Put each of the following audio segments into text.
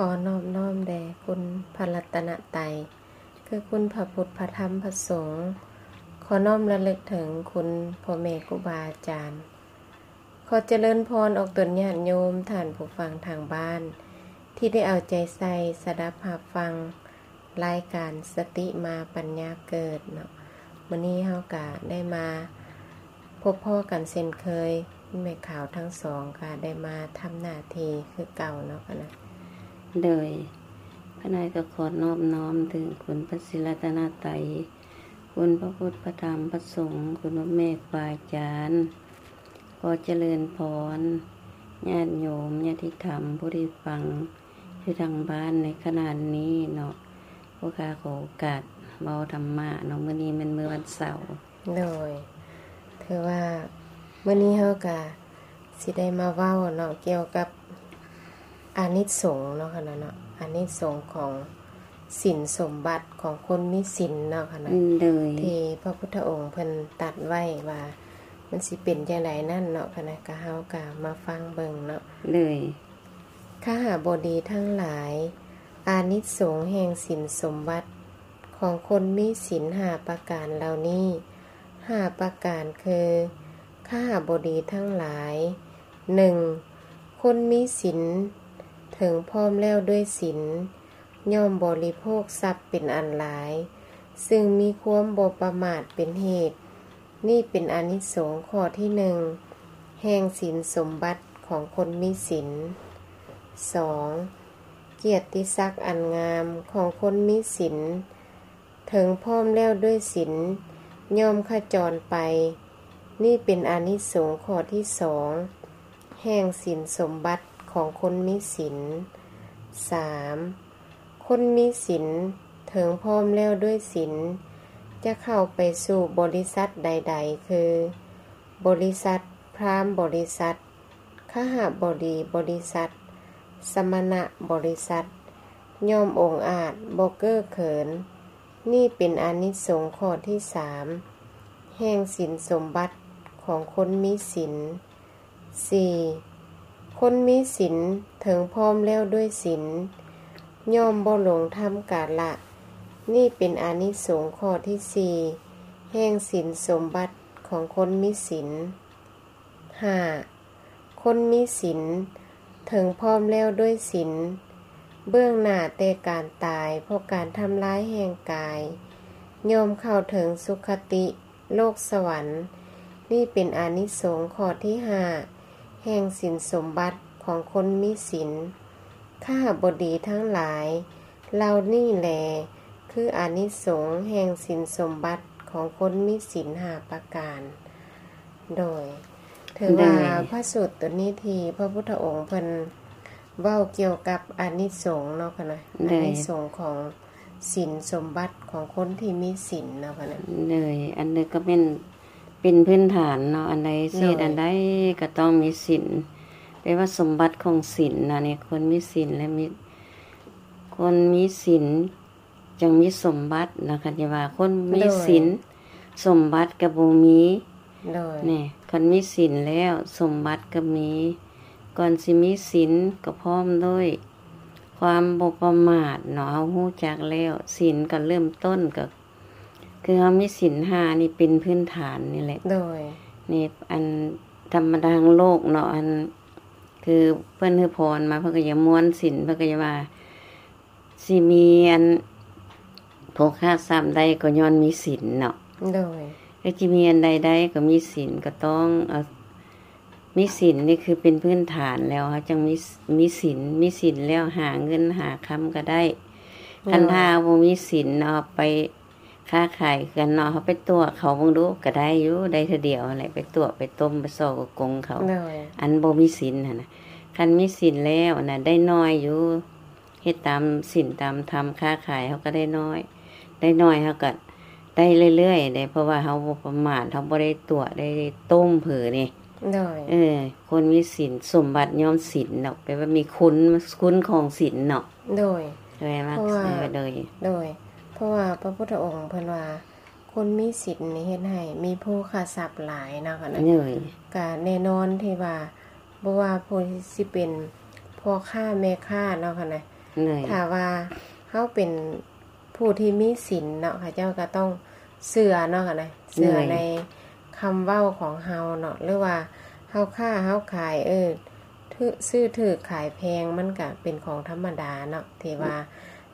ຂໍນອບນ້ອມແດ່ຄຸນພະລັດຕະນະໄຕ ຄືຄຸນພະພຸດ ພະທຳ ພະສົງ. ຂໍນ້ອມລະລຶກເຖິງຄຸນພໍ່ແມ່ຄູບາອາຈານ. ຂໍຈະເລີນພອນອອກຕົນຍາດໂຍມ, ທ່ານຜູ້ຟັງທາງບ້ານ ທີ່ໄດ້ເອົາໃຈໃສ່ສະດັບຮັບຟັງ ລາຍການສະຕິມາປັນຍາເກີດເນາະ. ມື້ນີ້ເຮົາກະໄດ້ມາພົບພໍ້ກັນເຊັ່ນເຄີຍ, ແມ່ຂາວທັງສອງກະໄດ້ມາທຳໜ້າທີ່ຄືເກົ່າເນາະຄະນະ. ໂດຍ ຄະນະກະຂໍນອບນ້ອມເຖິງຄຸນພະສີລັດຕະນະໄຕ, ຄຸນພະພຸດ ພະທຳ ພະສົງ, ຄຸນພໍ່ແມ່ຄູບາອາຈານ. ຂໍຈະເລີນພອນ ຍາດໂຍມ ຍາດຕິທຳ ຜູ້ທີ່ຟັງຢູ່ທາງບ້ານໃນຂະນະນີ້ເນາະ. ພວກຂ້າຂໍໂອກາດເວົ້າທຳມະເນາະ, ມື້ນີ້ແມ່ນມື້ວັນເສົາ. ໂດຍ ຖືວ່າມື້ນີ້ເຮົາກະຊິໄດ້ມາເວົ້າເນາະ ກ່ຽວກັບອານິສົງເນາະຄະນະເນາະ, ອານິສົງຂອງສິນສົມບັດຂອງຄົນມີສິນເນາະຄະນະ. ໂດຍ ທີ່ພະພຸດທະອົງເພິ່ນຕັດໄວ້ວ່າມັນຊິເປັນຈັ່ງໃດນັ້ນເນາະຄະນະ, ກະເຮົາກະມາຟັງເບິ່ງເນາະ. ໂດຍ ຄະຫະບໍດີທັງຫຼາຍ, ອານິສົງແຫ່ງສິນສົມບັດຂອງຄົນມີສິນຫ້າປະການເຫຼົ່ານີ້ ຫ້າປະການຄື ຄະຫະບໍດີທັງຫຼາຍ, ໜຶ່ງ ຄົນມີສິນເຖິງພ້ອມແລ້ວດ້ວຍສິນ ຍ່ອມບໍລິໂພກຊັບເປັນອັນຫຼາຍ ຊຶ່ງມີຄວາມບໍ່ປະໝາດເປັນເຫດ. ນີ້ເປັນອານິສົງຂໍ້ທີໜຶ່ງ ແຫ່ງສິນສົມບັດຂອງຄົນມີສິນ. ສອງ ກຽດຕິສັກອັນງາມຂອງຄົນມີສິນ ເຖິງພ້ອມແລ້ວດ້ວຍສິນ ຍ່ອມຂະຈອນໄປ. ນີ້ເປັນອານິສົງຂໍ້ທີສອງ ແຫ່ງສິນສົມບັດຂອງຄົນມີສິນ. ສາມ ຄົນມີສິນເຖິງພ້ອມແລ້ວດ້ວຍສິນ ຈະເຂົ້າໄປສູ່ບໍລິສັດໃດໆ ຄື ບໍລິສັດພາມບໍລິສັດ, ຄະຫະບໍດີບໍລິສັດ, ສະມະນະບໍລິສັດ ຍ່ອມອົງອາດບໍ່ເກີເຂີນ. ນີ້ເປັນອານິສົງຂໍ້ທີສາມ ແຫ່ງສິນສົມບັດຂອງຄົນມີສິນ. ສີ່ ຄົນມີສິນເຖິງພ້ອມແລ້ວດ້ວຍສິນ ຍ່ອມບໍ່ຫຼົງທຳກາລະ. ນີ້ເປັນອານິສົງຂໍ້ທີສີ່ ແຫ່ງສິນສົມບັດຂອງຄົນມີສິນ. ຫ້າ ຄົນມີສິນເຖິງພ້ອມແລ້ວດ້ວຍສິນ ເບື້ອງໜ້າແຕ່ການຕາຍເພາະການທຳລາຍແຫ່ງກາຍ ຍ່ອມເຂົ້າເຖິງສຸຄະຕິ ໂລກສະຫວັນ. ນີ້ເປັນອານິສົງຂໍ້ທີຫ້າ ແຫ່ງສິນສົມບັດຂອງຄົນມີສິນ. ຄະຫະບໍດີທັງຫຼາຍ, ເຫຼົ່ານີ້ແລຄືອານິສົງແຫ່ງສິນສົມບັດຂອງຄົນມີສິນຫ້າປະການ. ໂດຍ ຖືວ່າ ໂດຍ ພະສູດໂຕນີ້ທີ່ພະພຸດທະອົງເພິ່ນເວົ້າກ່ຽວກັບອານິສົງເນາະຄະນະ, ໂດຍ ອານິສົງຂອງ ສິນສົມບັດຂອງຄົນທີ່ມີສິນເນາະຄະນະ. ໂດຍ ອັນນີ້ກໍແມ່ນເປັນພື້ນຖານເນາະ, ອັນໃດເສດ ໂດຍ ອັນໃດກໍຕ້ອງມີສິນ. ແປວ່າສົມບັດຂອງສິນນະນີ້ ຄົນມີສິນແລະມີ ຄົນມີສິນຈັ່ງມີສົມບັດນະ. ຄັນທີ່ວ່າຄົນມີ ໂດຍ ສິນ ສົມບັດກໍບໍ່ມີ. ໂດຍ ນີ້ ຄັນມີສິນແລ້ວ ສົມບັດກໍມີ. ກ່ອນຊິມີສິນກໍພ້ອມດ້ວຍ ຄວາມບໍ່ປະໝາດເນາະ, ເຮົາຮູ້ຈັກແລ້ວ ສິນກໍເລີ່ມຕົ້ນກໍຄືເຮົາມີສິນຫ້ານີ້ເປັນພື້ນຖານນີ້ແຫຼະ. ໂດຍ ນີ້ອັນທຳມະດາທາງໂລກເນາະ, ອັນຄືເພິ່ນໃຫ້ພອນມາ ເພິ່ນກໍຢາກມ່ວນສິນ ເພິ່ນກໍຢາກວ່າຊິມີອັນໂພຄະຊັບໄດ້ກໍຍ້ອນມີສິນເນາະ. ໂດຍ ກໍຊິມີອັນໃດໄດ້ກໍມີສິນ, ກໍຕ້ອງເອົາ ມີສິນນີ້ຄືເປັນພື້ນຖານແລ້ວ ເຮົາຈັ່ງມີ ມີສິນ, ມີສິນແລ້ວຫາເງິນຫາຄຳກໍໄດ້. ໂດຍ ຄັນຖ້າບໍ່ມີສິນ ເອົາໄປຄ້າຂາຍກັນເນາະ, ເຮົາໄປຕົວະເຂົາເບິ່ງດູ ກໍໄດ້ຢູ່, ໄດ້ເທື່ອດຽວຫັ້ນແຫຼະ, ໄປຕົວະໄປຕົ້ມໄປສໍ້ໂກງເຂົາ. ໂດຍ ອັນບໍ່ມີສິນຫັ້ນນະ, ຄັນມີສິນແລ້ວນະ ໄດ້ໜ້ອຍຢູ່. ເຮັດຕາມສິນຕາມທຳ ຄ້າຂາຍເຮົາກໍໄດ້ໜ້ອຍ, ໄດ້ໜ້ອຍເຮົາກໍໄດ້ເລື້ອຍໆເດ້, ເພາະວ່າເຮົາບໍ່ປະໝາດ, ເຮົາບໍ່ໄດ້ຕົວະໄດ້ຕົ້ມເຜີນີ້. ໂດຍ ເອີ ຄົນມີສິນ ສົມບັດຍ້ອນສິນດອກ, ແປວ່າມີຄຸນ, ຄຸນຂອງສິນເນາະ. ໂດຍ ແປວ່າ ເພາະວ່າ ເອີ ໂດຍ ໂດຍ ເພາະວ່າພະພຸດທະອົງເພິ່ນວ່າ ຄົນມີສິນນີ້ເຮັດໃຫ້ມີໂພຄະຊັບຫຼາຍເນາະຄະນະ. ໂດຍ ກະແນ່ນອນທີ່ວ່າ ບໍ່ວ່າຜູ້ຊິເປັນພໍ່ຄ້າແມ່ຄ້າເນາະຄະນະ, ໂດຍ ຖ້າວ່າເຮົາເປັນຜູ້ທີ່ມີສິນເນາະ ເຂົາເຈົ້າກໍຕ້ອງເຊື່ອເນາະ ເຊື່ອ ໂດຍ ໃນຄຳເວົ້າຂອງເຮົາເນາະ ຫຼືວ່າເຮົາຄ້າເຮົາຂາຍ ເອີ ຖືກ ຊື້ຖືກຂາຍແພງ ມັນກະເປັນຂອງທຳມະດາເນາະ ທີ່ວ່າ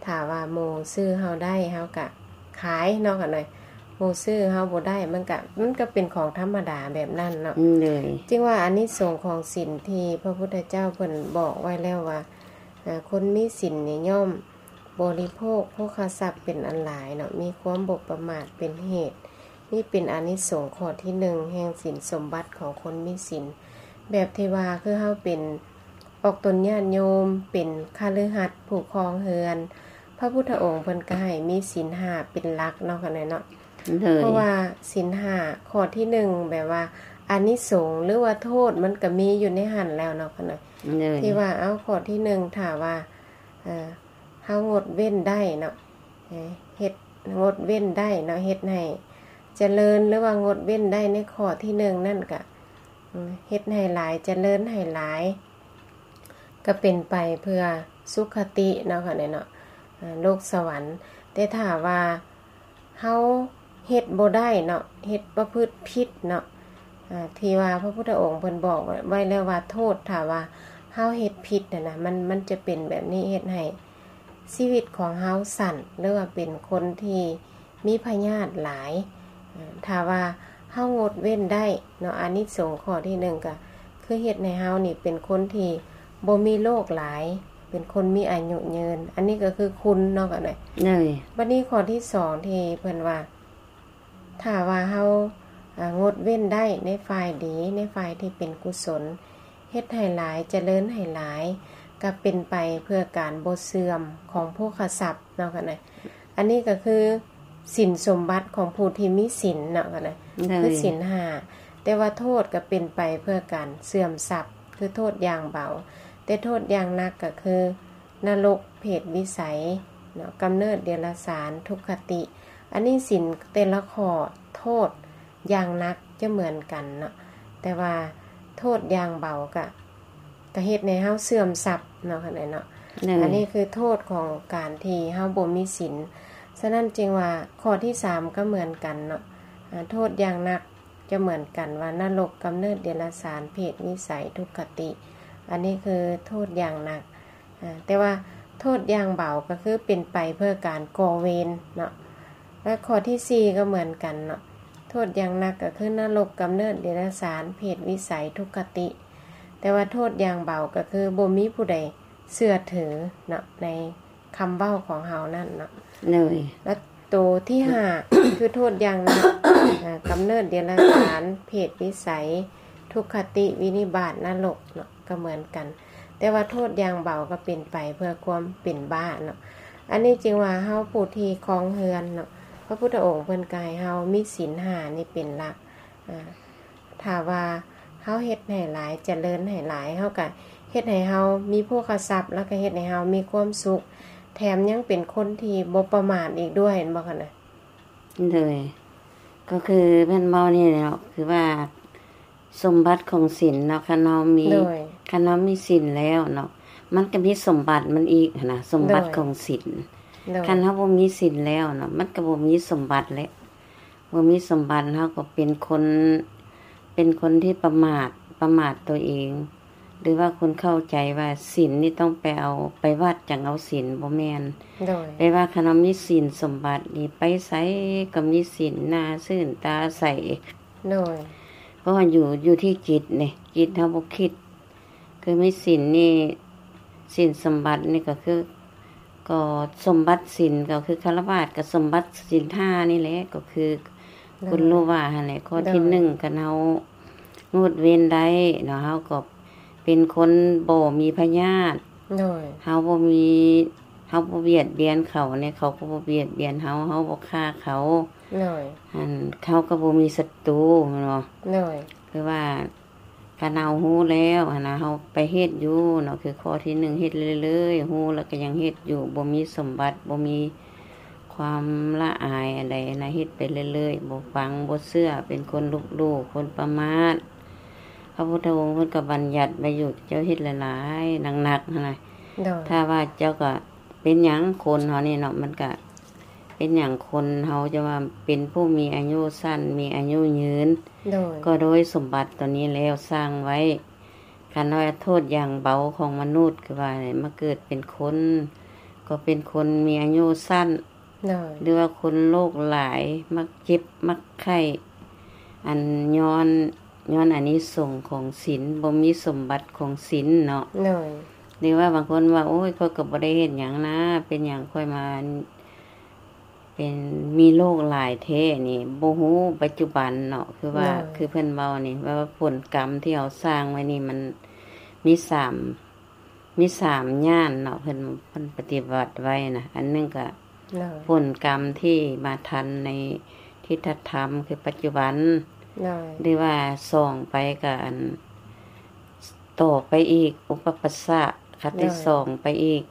ຖ້າວ່າໝູ່ຊື້ເຮົາໄດ້ ເຮົາກະຂາຍເນາະ ຄັນວ່າໝູ່ຊື້ເຮົາບໍ່ໄດ້ ມັນກະ ມັນກະເປັນຂອງທຳມະດາແບບນັ້ນເນາະ ໂດຍ ຈຶ່ງວ່າອານິສົງຂອງສິນທີ່ພະພຸດທະເຈົ້າເພິ່ນບອກໄວ້ແລ້ວວ່າ ອາ ຄົນມີສິນນີ້ຍ່ອມບໍລິໂພກໂພຄະຊັບເປັນອັນຫຼາຍເນາະ ມີຄວາມບໍ່ປະໝາດເປັນເຫດ ນີ້ເປັນອານິສົງຂໍ້ທີໜຶ່ງແຫ່ງສິນສົມບັດຂອງຄົນມີສິນ ແບບທີ່ວ່າຄືເຮົາເປັນອອກຕົນຍາດໂຍມ ເປັນຄະລືຮັດ ຜູ້ຄອງເຮືອນ ພະພຸດທະອົງເພິ່ນກໍໃຫ້ມີສິນຫ້າເປັນຫຼັກເນາະ ຄັນວ່າເນາະ ໂດຍ ເພາະວ່າສິນຫ້າຂໍ້ທີໜຶ່ງ ແບບວ່າອານິສົງ ຫຼືວ່າໂທດ ມັນກໍມີຢູ່ໃນຫັ້ນແລ້ວເນາະ ຄັນວ່າ ໂດຍ ທີ່ວ່າ ເອົາ ຂໍ້ທີໜຶ່ງ ຖ້າວ່າ ເອີ ເຮົາງົດເວັ້ນໄດ້ເນາະ ເຮັດ ງົດເວັ້ນໄດ້ເນາະ ເຮັດໃຫ້ຈະເລີນ ຫຼືວ່າງົດເວັ້ນໄດ້ໃນຂໍ້ທີໜຶ່ງນັ້ນກະ ເຮັດໃຫ້ຫຼາຍ ຈະເລີນໃຫ້ຫຼາຍ ກະເປັນໄປເພື່ອສຸຄະຕິເນາະ ເນາະ ໂລກສະຫວັນ ແຕ່ຖ້າວ່າ ເຮົາເຮັດບໍ່ໄດ້ເນາະ ເຮັດປະພຶດຜິດເນາະ ອາ ທີ່ວ່າພະພຸດທະອົງເພິ່ນບອກໄວ້ແລ້ວວ່າໂທດ ຖ້າວ່າເຮົາເຮັດຜິດຫັ້ນນະ ມັນ ມັນຈະເປັນແບບນີ້ ເຮັດໃຫ້ຊີວິດຂອງເຮົາສັ້ນ ຫຼືວ່າເປັນຄົນທີ່ມີພະຍາດຫຼາຍ ອາ ຖ້າວ່າເຮົາງົດເວັ້ນໄດ້ເນາະ ອານິສົງຂໍ້ທີໜຶ່ງ ກະຄືເຮັດໃຫ້ເຮົານີ້ເປັນຄົນທີ່ ບໍ່ມີໂລກຫຼາຍ ເປັນຄົນມີອາຍຸຍືນ ອັນນີ້ກໍຄືຄຸນເນາະ ກັນເລີຍ ໂດຍ ບັດນີ້ຂໍ້ທີສອງ ທີ່ເພິ່ນວ່າ ຖ້າວ່າເຮົາ ອາ ງົດເວັ້ນໄດ້ໃນຝ່າຍດີ ໃນຝ່າຍທີ່ເປັນກຸສົນ ເຮັດໃຫ້ຫຼາຍ ຈະເລີນໃຫ້ຫຼາຍ ກໍເປັນໄປເພື່ອການບໍ່ເສື່ອມຂອງໂພຄະຊັບເນາະ ກັນເລີຍ ອັນນີ້ກໍຄືສິນສົມບັດຂອງຜູ້ທີ່ມີສິນເນາະ ກັນເລີຍ ໂດຍ ຄືສິນຫ້າ ແຕ່ວ່າໂທດກໍເປັນໄປເພື່ອການເສື່ອມຊັບ ຄືໂທດຢ່າງເບົາ ແຕ່ໂທດຢ່າງໜັກກໍຄືນະລົກ ເປດວິໄສເນາະ ກຳເນີດເດຍລະສານ ທຸກຄະຕິ ອັນນີ້ສິນແຕ່ລະຂໍ້ໂທດຢ່າງໜັກຈະເໝືອນກັນເນາະ ແຕ່ວ່າໂທດຢ່າງເບົາກະ ກະເຮັດໃຫ້ເຮົາເສື່ອມຊັບເນາະ ຄັນໃດເນາະ ໂດຍ ອັນນີ້ຄືໂທດຂອງການທີ່ເຮົາບໍ່ມີສິນ ສະນັ້ນຈຶ່ງວ່າຂໍ້ທີສາມກໍເໝືອນກັນເນາະ ອາ ໂທດຢ່າງໜັກຈະເໝືອນກັນວ່ານະລົກ ກຳເນີດເດຍລະສານ ເປດວິໄສ ທຸກຄະຕິ ອັນນີ້ຄືໂທດຢ່າງໜັກ ອາ ແຕ່ວ່າໂທດຢ່າງເບົາກໍຄືເປັນໄປເພື່ອການກໍ່ເວນເນາະ ແລະ ຂໍ້ທີສີ່ກໍເໝືອນກັນເນາະ ໂທດຢ່າງໜັກກໍຄືນະລົກ ກຳເນີດເດຍລະສານ ເປດວິໄສ ທຸກຄະຕິ ແຕ່ວ່າໂທດຢ່າງເບົາກໍຄືບໍ່ມີຜູ້ໃດເຊື່ອຖືເນາະ ໃນຄຳເວົ້າຂອງເຮົານັ້ນເນາະ ໂດຍ ແລະ ໂຕທີຫ້າ ຄືໂທດຢ່າງໜັກ ອາ ກຳເນີດເດຍລະສານ ເປດວິໄສ ທຸກຄະຕິ ວິນິບາດ ນະລົກເນາະ ກໍເໝືອນກັນ ແຕ່ວ່າໂທດຢ່າງເບົາກໍເປັນໄປເພື່ອຄວາມເປັນບ້າເນາະ ອັນນີ້ຈຶ່ງວ່າເຮົາຜູ້ທີ່ຄອງເຮືອນເນາະ ພະພຸດທະອົງເພິ່ນກໍໃຫ້ເຮົາມີສິນຫ້ານີ້ເປັນຫຼັກ ອາ ຖ້າວ່າເຮົາເຮັດໃຫ້ຫຼາຍ ຈະເລີນໃຫ້ຫຼາຍ ເຮົາກໍເຮັດໃຫ້ເຮົາມີໂພຄະຊັບ ແລ້ວກໍເຮັດໃຫ້ເຮົາມີຄວາມສຸກ ແຖມຍັງເປັນຄົນທີ່ບໍ່ປະໝາດອີກດ້ວຍ ແມ່ນບໍ່ຄະນະ? ໂດຍ ກໍຄືເພິ່ນເວົ້ານີ້ແຫຼະເນາະ ຄືວ່າສົມບັດຂອງສິນເນາະ ຄັນເຮົາມີ ໂດຍ ຄັນເຮົາມີສິນແລ້ວເນາະ ມັນກໍມີສົມບັດມັນອີກຫັ້ນນະ ສົມບັດ ໂດຍ ຂອງສິນ ໂດຍ ຄັນເຮົາບໍ່ມີສິນແລ້ວເນາະ ມັນກໍບໍ່ມີສົມບັດແຫຼະ ບໍ່ມີສົມບັດ ເຮົາກໍເປັນຄົນ ເປັນຄົນທີ່ປະໝາດ ປະໝາດຕົວເອງ ຫຼືວ່າຄົນເຂົ້າໃຈວ່າສິນນີ້ຕ້ອງໄປເອົາ ໄປວັດຈັ່ງເອົາສິນ ບໍ່ແມ່ນ ໂດຍ ແປວ່າຄັນເຮົາມີສິນສົມບັດນີ້ ໄປໃສກໍມີສິນ ໜ້າຊື່ນຕາໃສ ໂດຍ ເພາະວ່າຢູ່ ຢູ່ທີ່ຈິດນີ້ ຈິດເຮົາບໍ່ຄິດ ຄືມີສິນນີ້ ສິນສົມບັດນີ້ກໍຄື ກໍສົມບັດສິນ ກໍຄືຄາລະວາດ ກໍສົມບັດສິນຫ້ານີ້ແຫຼະ ກໍຄື ໂດຍ ຄຸນຮູ້ວ່າຫັ້ນແຫຼະ ຂໍ້ທີ ໂດຍ ໜຶ່ງ ຄັນເຮົາງົດເວັ້ນໄດ້ເນາະ ເຮົາກໍເປັນຄົນບໍ່ມີພະຍາດ ໂດຍ ເຮົາບໍ່ມີ ເຮົາບໍ່ບຽດບຽນເຂົາແດ່ ເຂົາກໍບໍ່ບຽດບຽນເຮົາ ເຮົາບໍ່ຂ້າເຂົາ ໂດຍ ອັນ ເຮົາກໍບໍ່ມີສັດຕູແມ່ນບໍ່? ໂດຍ ຄືວ່າ ຄັນເຮົາຮູ້ແລ້ວຫັ້ນນະ ເຮົາໄປເຮັດຢູ່ເນາະ ຄືຂໍ້ທີໜຶ່ງ ເຮັດເລື້ອຍໆ ຮູ້ແລ້ວກໍຍັງເຮັດຢູ່ ບໍ່ມີສົມບັດ ບໍ່ມີຄວາມລະອາຍອັນໃດນະ ເຮັດໄປເລື້ອຍໆ ບໍ່ຟັງ ບໍ່ເຊື່ອ ເປັນຄົນລົບຫຼູ່ ຄົນປະໝາດ ພະພຸດທະອົງເພິ່ນກໍບັນຍັດໄວ້ຢູ່ ເຈົ້າເຮັດຫຼາຍໆ ໜັກໆ ຫັ້ນນະ ໂດຍ ຖ້າວ່າເຈົ້າກໍ ເປັນຫຍັງຄົນເຮົານີ້ເນາະ ມັນກະເປັນຫຍັງຄົນເຮົາຈະວ່າເປັນຜູ້ມີອາຍຸສັ້ນ ມີອາຍຸຍືນ ໂດຍ ກໍໂດຍສົມບັດຕົວນີ້ແລ້ວສ້າງໄວ້. ຄັນວ່າໂທດຢ່າງເບົາຂອງມະນຸດ ຄືວ່າມາເກີດເປັນຄົນ ກໍເປັນຄົນມີອາຍຸສັ້ນ ໂດຍ ຫຼືວ່າຄົນໂລກຫຼາຍ ມັກເຈັບ ມັກໄຂ້ ອັນຍ້ອນ ຍ້ອນອານິສົງຂອງສິນ ບໍ່ມີສົມບັດຂອງສິນເນາະ ໂດຍ ຫຼືວ່າບາງຄົນວ່າ ໂອ້ຍ ຂ້ອຍກໍບໍ່ໄດ້ເຮັດຫຍັງນາ ເປັນຫຍັງຂ້ອຍມາ ເປັນ ມີໂລກຫຼາຍແທ້ນີ້ ບໍ່ຮູ້ປັດຈຸບັນເນາະ ຄືວ່າ ໂດຍ ຄືເພິ່ນເວົ້ານີ້ ແບບວ່າຜົນກຳທີ່ເຮົາສ້າງໄວ້ນີ້ ມັນມີສາມ ມີສາມຢ່າງເນາະ ເພິ່ນ ເພິ່ນປະຕິບັດໄວ້ນະ ອັນໜຶ່ງກະ ໂດຍ ຜົນກຳທີ່ມາທັນໃນທິດຖະທຳ ຄືປັດຈຸບັນ ໂດຍ ຫຼືວ່າສອງໄປກະອັນ ຕໍ່ໄປອີກ ອຸປະປັດສະ ຄະຕິ ໂດຍ ສອງໄປອີກ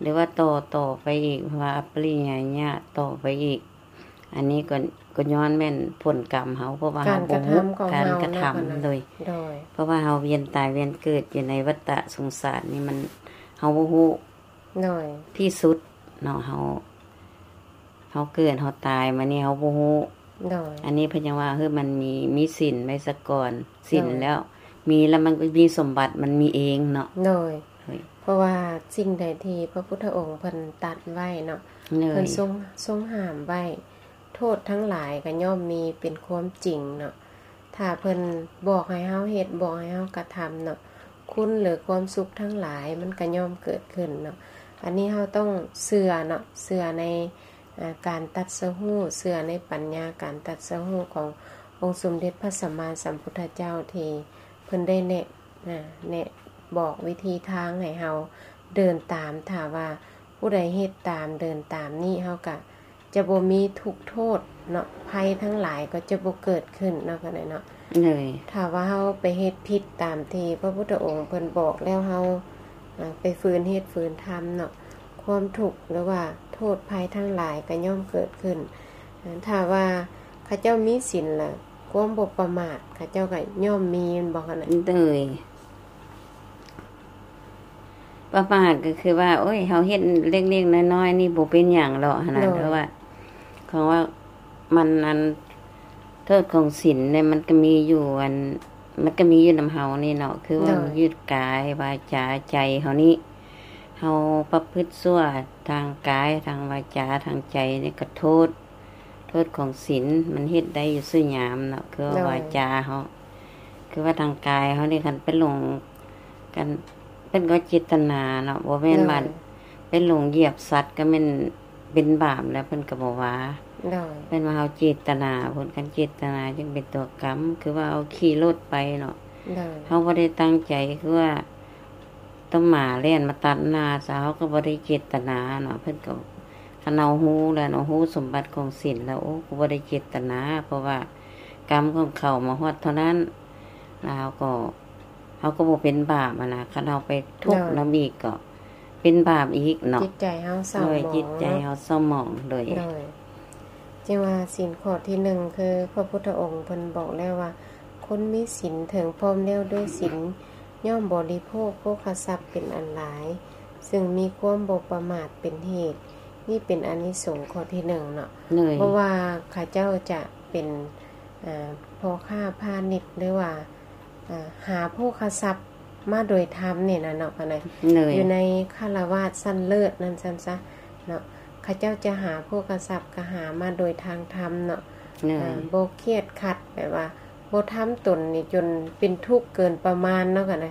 ຫຼືວ່າຕໍ່ ຕໍ່ໄປອີກ ເພາະວ່າອະປະລິຍາຍະຕໍ່ໄປອີກ ອັນນີ້ກໍ ກໍຍ້ອນແມ່ນຜົນກຳເຮົາ ເພາະວ່າເຮົາບໍ່ຮູ້ການກະທຳ ການກະທຳຂອງເຮົາເນາະ ໂດຍ ໂດຍ ເພາະວ່າເຮົາວຽນຕາຍວຽນເກີດຢູ່ໃນວັດຕະສົງສານນີ້ ມັນ ເຮົາບໍ່ຮູ້ ໂດຍ ທີ່ສຸດເນາະ ເຮົາ ເຮົາເກີດເຮົາຕາຍມານີ້ເຮົາບໍ່ຮູ້ ໂດຍ ອັນນີ້ເພິ່ນຍັງວ່າ ເຮີ ມັນມີ ມີສິນໄວ້ສາກ່ອນ ສິນ ໂດຍ ແລ້ວ ມີແລ້ວມັນກໍມີສົມບັດ ມັນມີເອງເນາະ ໂດຍ ໂດຍ ເພາະວ່າສິ່ງໃດທີ່ພະພຸດທະອົງເພິ່ນຕັດໄວ້ເນາະ ໂດຍ ເພິ່ນຊົງ ຊົງຫ້າມໄວ້ ໂທດທັງຫຼາຍກໍຍ່ອມມີເປັນຄວາມຈິງເນາະ ຖ້າເພິ່ນບອກໃຫ້ເຮົາເຮັດ ບອກໃຫ້ເຮົາກະທຳເນາະ ຄຸນ ຫຼື ຄວາມສຸກທັງຫຼາຍມັນກະຍ່ອມເກີດຂຶ້ນເນາະ ອັນນີ້ເຮົາຕ້ອງເຊື່ອເນາະ ເຊື່ອໃນ ອາ ການຕັດສະຮູ້ ເຊື່ອໃນປັນຍາການຕັດສະຮູ້ຂອງອົງສົມເດັດພະສຳມາສຳພຸດທະເຈົ້າ ທີ່ເພິ່ນໄດ້ແນະ ອາ ແນະບອກວິທີທາງໃຫ້ເຮົາເດີນຕາມ ຖ້າວ່າຜູ້ໃດເຮັດຕາມ ເດີນຕາມນີ້ ເຮົາກະຈະບໍ່ມີທຸກໂທດເນາະ ໄພທັງຫຼາຍກໍຈະບໍ່ເກີດຂຶ້ນເນາະ ກະໄດ້ເນາະ ໂດຍ ຖ້າວ່າເຮົາໄປເຮັດຜິດຕາມທີ່ພະພຸດທະອົງເພິ່ນບອກແລ້ວ ເຮົາ ອາ ໄປຝືນເຮັດຝືນທຳເນາະ ຄວາມທຸກ ຫຼືວ່າໂທດໄພທັງຫຼາຍກໍຍ່ອມເກີດຂຶ້ນ ອາ ຖ້າວ່າເຂົາເຈົ້າມີສິນລະ ຄວາມບໍ່ປະໝາດເຂົາເຈົ້າກໍຍ່ອມມີ ແມ່ນບໍ່ຄະນະ? ໂດຍ ປະໝາດກໍຄືວ່າ ໂອ້ຍ ເຮົາເຮັດເລັກໆນ້ອຍໆນີ້ບໍ່ເປັນຫຍັງດອກຫັ້ນນະ ໂດຍ ເພາະວ່າ ເພາະວ່າມັນ ອັນ ໂທດຂອງສິນນີ້ມັນກໍມີຢູ່ ອັນ ມັນກໍມີຢູ່ນຳເຮົານີ້ເນາະ ຄືວ່າ ໂດຍ ມັນຍຶດກາຍ ວາຈາ ໃຈເຮົານີ້ ເຮົາປະພຶດຊົ່ວທາງກາຍ ທາງວາຈາ ທາງໃຈນີ້ກໍໂທດ ໂທດຂອງສິນ ມັນເຮັດໄດ້ຢູ່ສູ່ຍາມເນາະ ຄືວ່າ ໂດຍ ວາຈາເຮົາ ຄືວ່າທາງກາຍເຮົານີ້ ຄັນໄປຫຼົງກັນ ເພິ່ນກໍເຈດຕະນາເນາະ ບໍ່ແມ່ນວ່າ ໂດຍ ໄປຫຼົງຢຽບສັດກໍແມ່ນເປັນບາບແລ້ວ ເພິ່ນກໍບໍ່ວ່າ ໂດຍ ເພິ່ນວ່າເຮົາເຈດຕະນາພຸ້ນ ຄັນເຈດຕະນາຈຶ່ງເປັນຕົວກຳ ຄືວ່າເຮົາຂີ່ລົດໄປເນາະ ໂດຍ ເຮົາບໍ່ໄດ້ຕັ້ງໃຈ ຄືວ່າ ຕຳໝາແລ່ນມາຕັດໜ້າຊະ ເຮົາກໍບໍ່ໄດ້ເຈດຕະນາເນາະ ເພິ່ນກໍ ຄັນເຮົາຮູ້ແລ້ວເນາະ ຮູ້ສົມບັດຂອງສິນແລ້ວ ໂອ້ ກໍບໍ່ໄດ້ເຈດຕະນາ ເພາະວ່າກຳຂອງເຂົາມາຮອດເທົ່ານັ້ນ ແລ້ວເຮົາກໍ ເຮົາກໍບໍ່ເປັນບາບຫັ້ນນະ ຄັນເຮົາໄປທຸກ ໂດຍ ນຳອີກກໍເປັນບາບອີກເນາະ ຈິດໃຈເຮົາເສົ້າໝອງ ໂດຍ ເນາະ ຈິດໃຈເຮົາເສົ້າໝອງ ໂດຍ ໂດຍ ຈຶ່ງວ່າສິນຂໍ້ທີໜຶ່ງ ຄືພະພຸດທະອົງເພິ່ນບອກແລ້ວວ່າ ຄົນມີສິນເຖິງພ້ອມແລ້ວດ້ວຍສິນ ຍ່ອມບໍລິໂພກໂພຄະຊັບເປັນອັນຫຼາຍ ຊຶ່ງມີຄວາມບໍ່ປະໝາດເປັນເຫດ ນີ້ເປັນອານິສົງຂໍ້ທີໜຶ່ງເນາະ ໂດຍ ບໍ່ວ່າເຂົາເຈົ້າຈະເປັນ ອ່າ ພໍ່ຄ້າພານິດ ຫຼືວ່າ ອ່າ ຫາໂພຄະຊັບມາໂດຍທຳນີ້ນະເນາະ ອັນນັ້ນ ໂດຍ ຢູ່ໃນຄາລະວາດຊັ້ນເລີດນັ້ນຊັ້ນຊະເນາະ ເຂົາເຈົ້າຈະຫາໂພຄະຊັບກໍຫາມາໂດຍທາງທຳເນາະ ໂດຍ ອ່າ ບໍ່ຄຽດຂັດ ແບບວ່າບໍ່ທຳຕົນນີ້ຈົນເປັນທຸກເກີນປະມານເນາະ ກໍໄດ້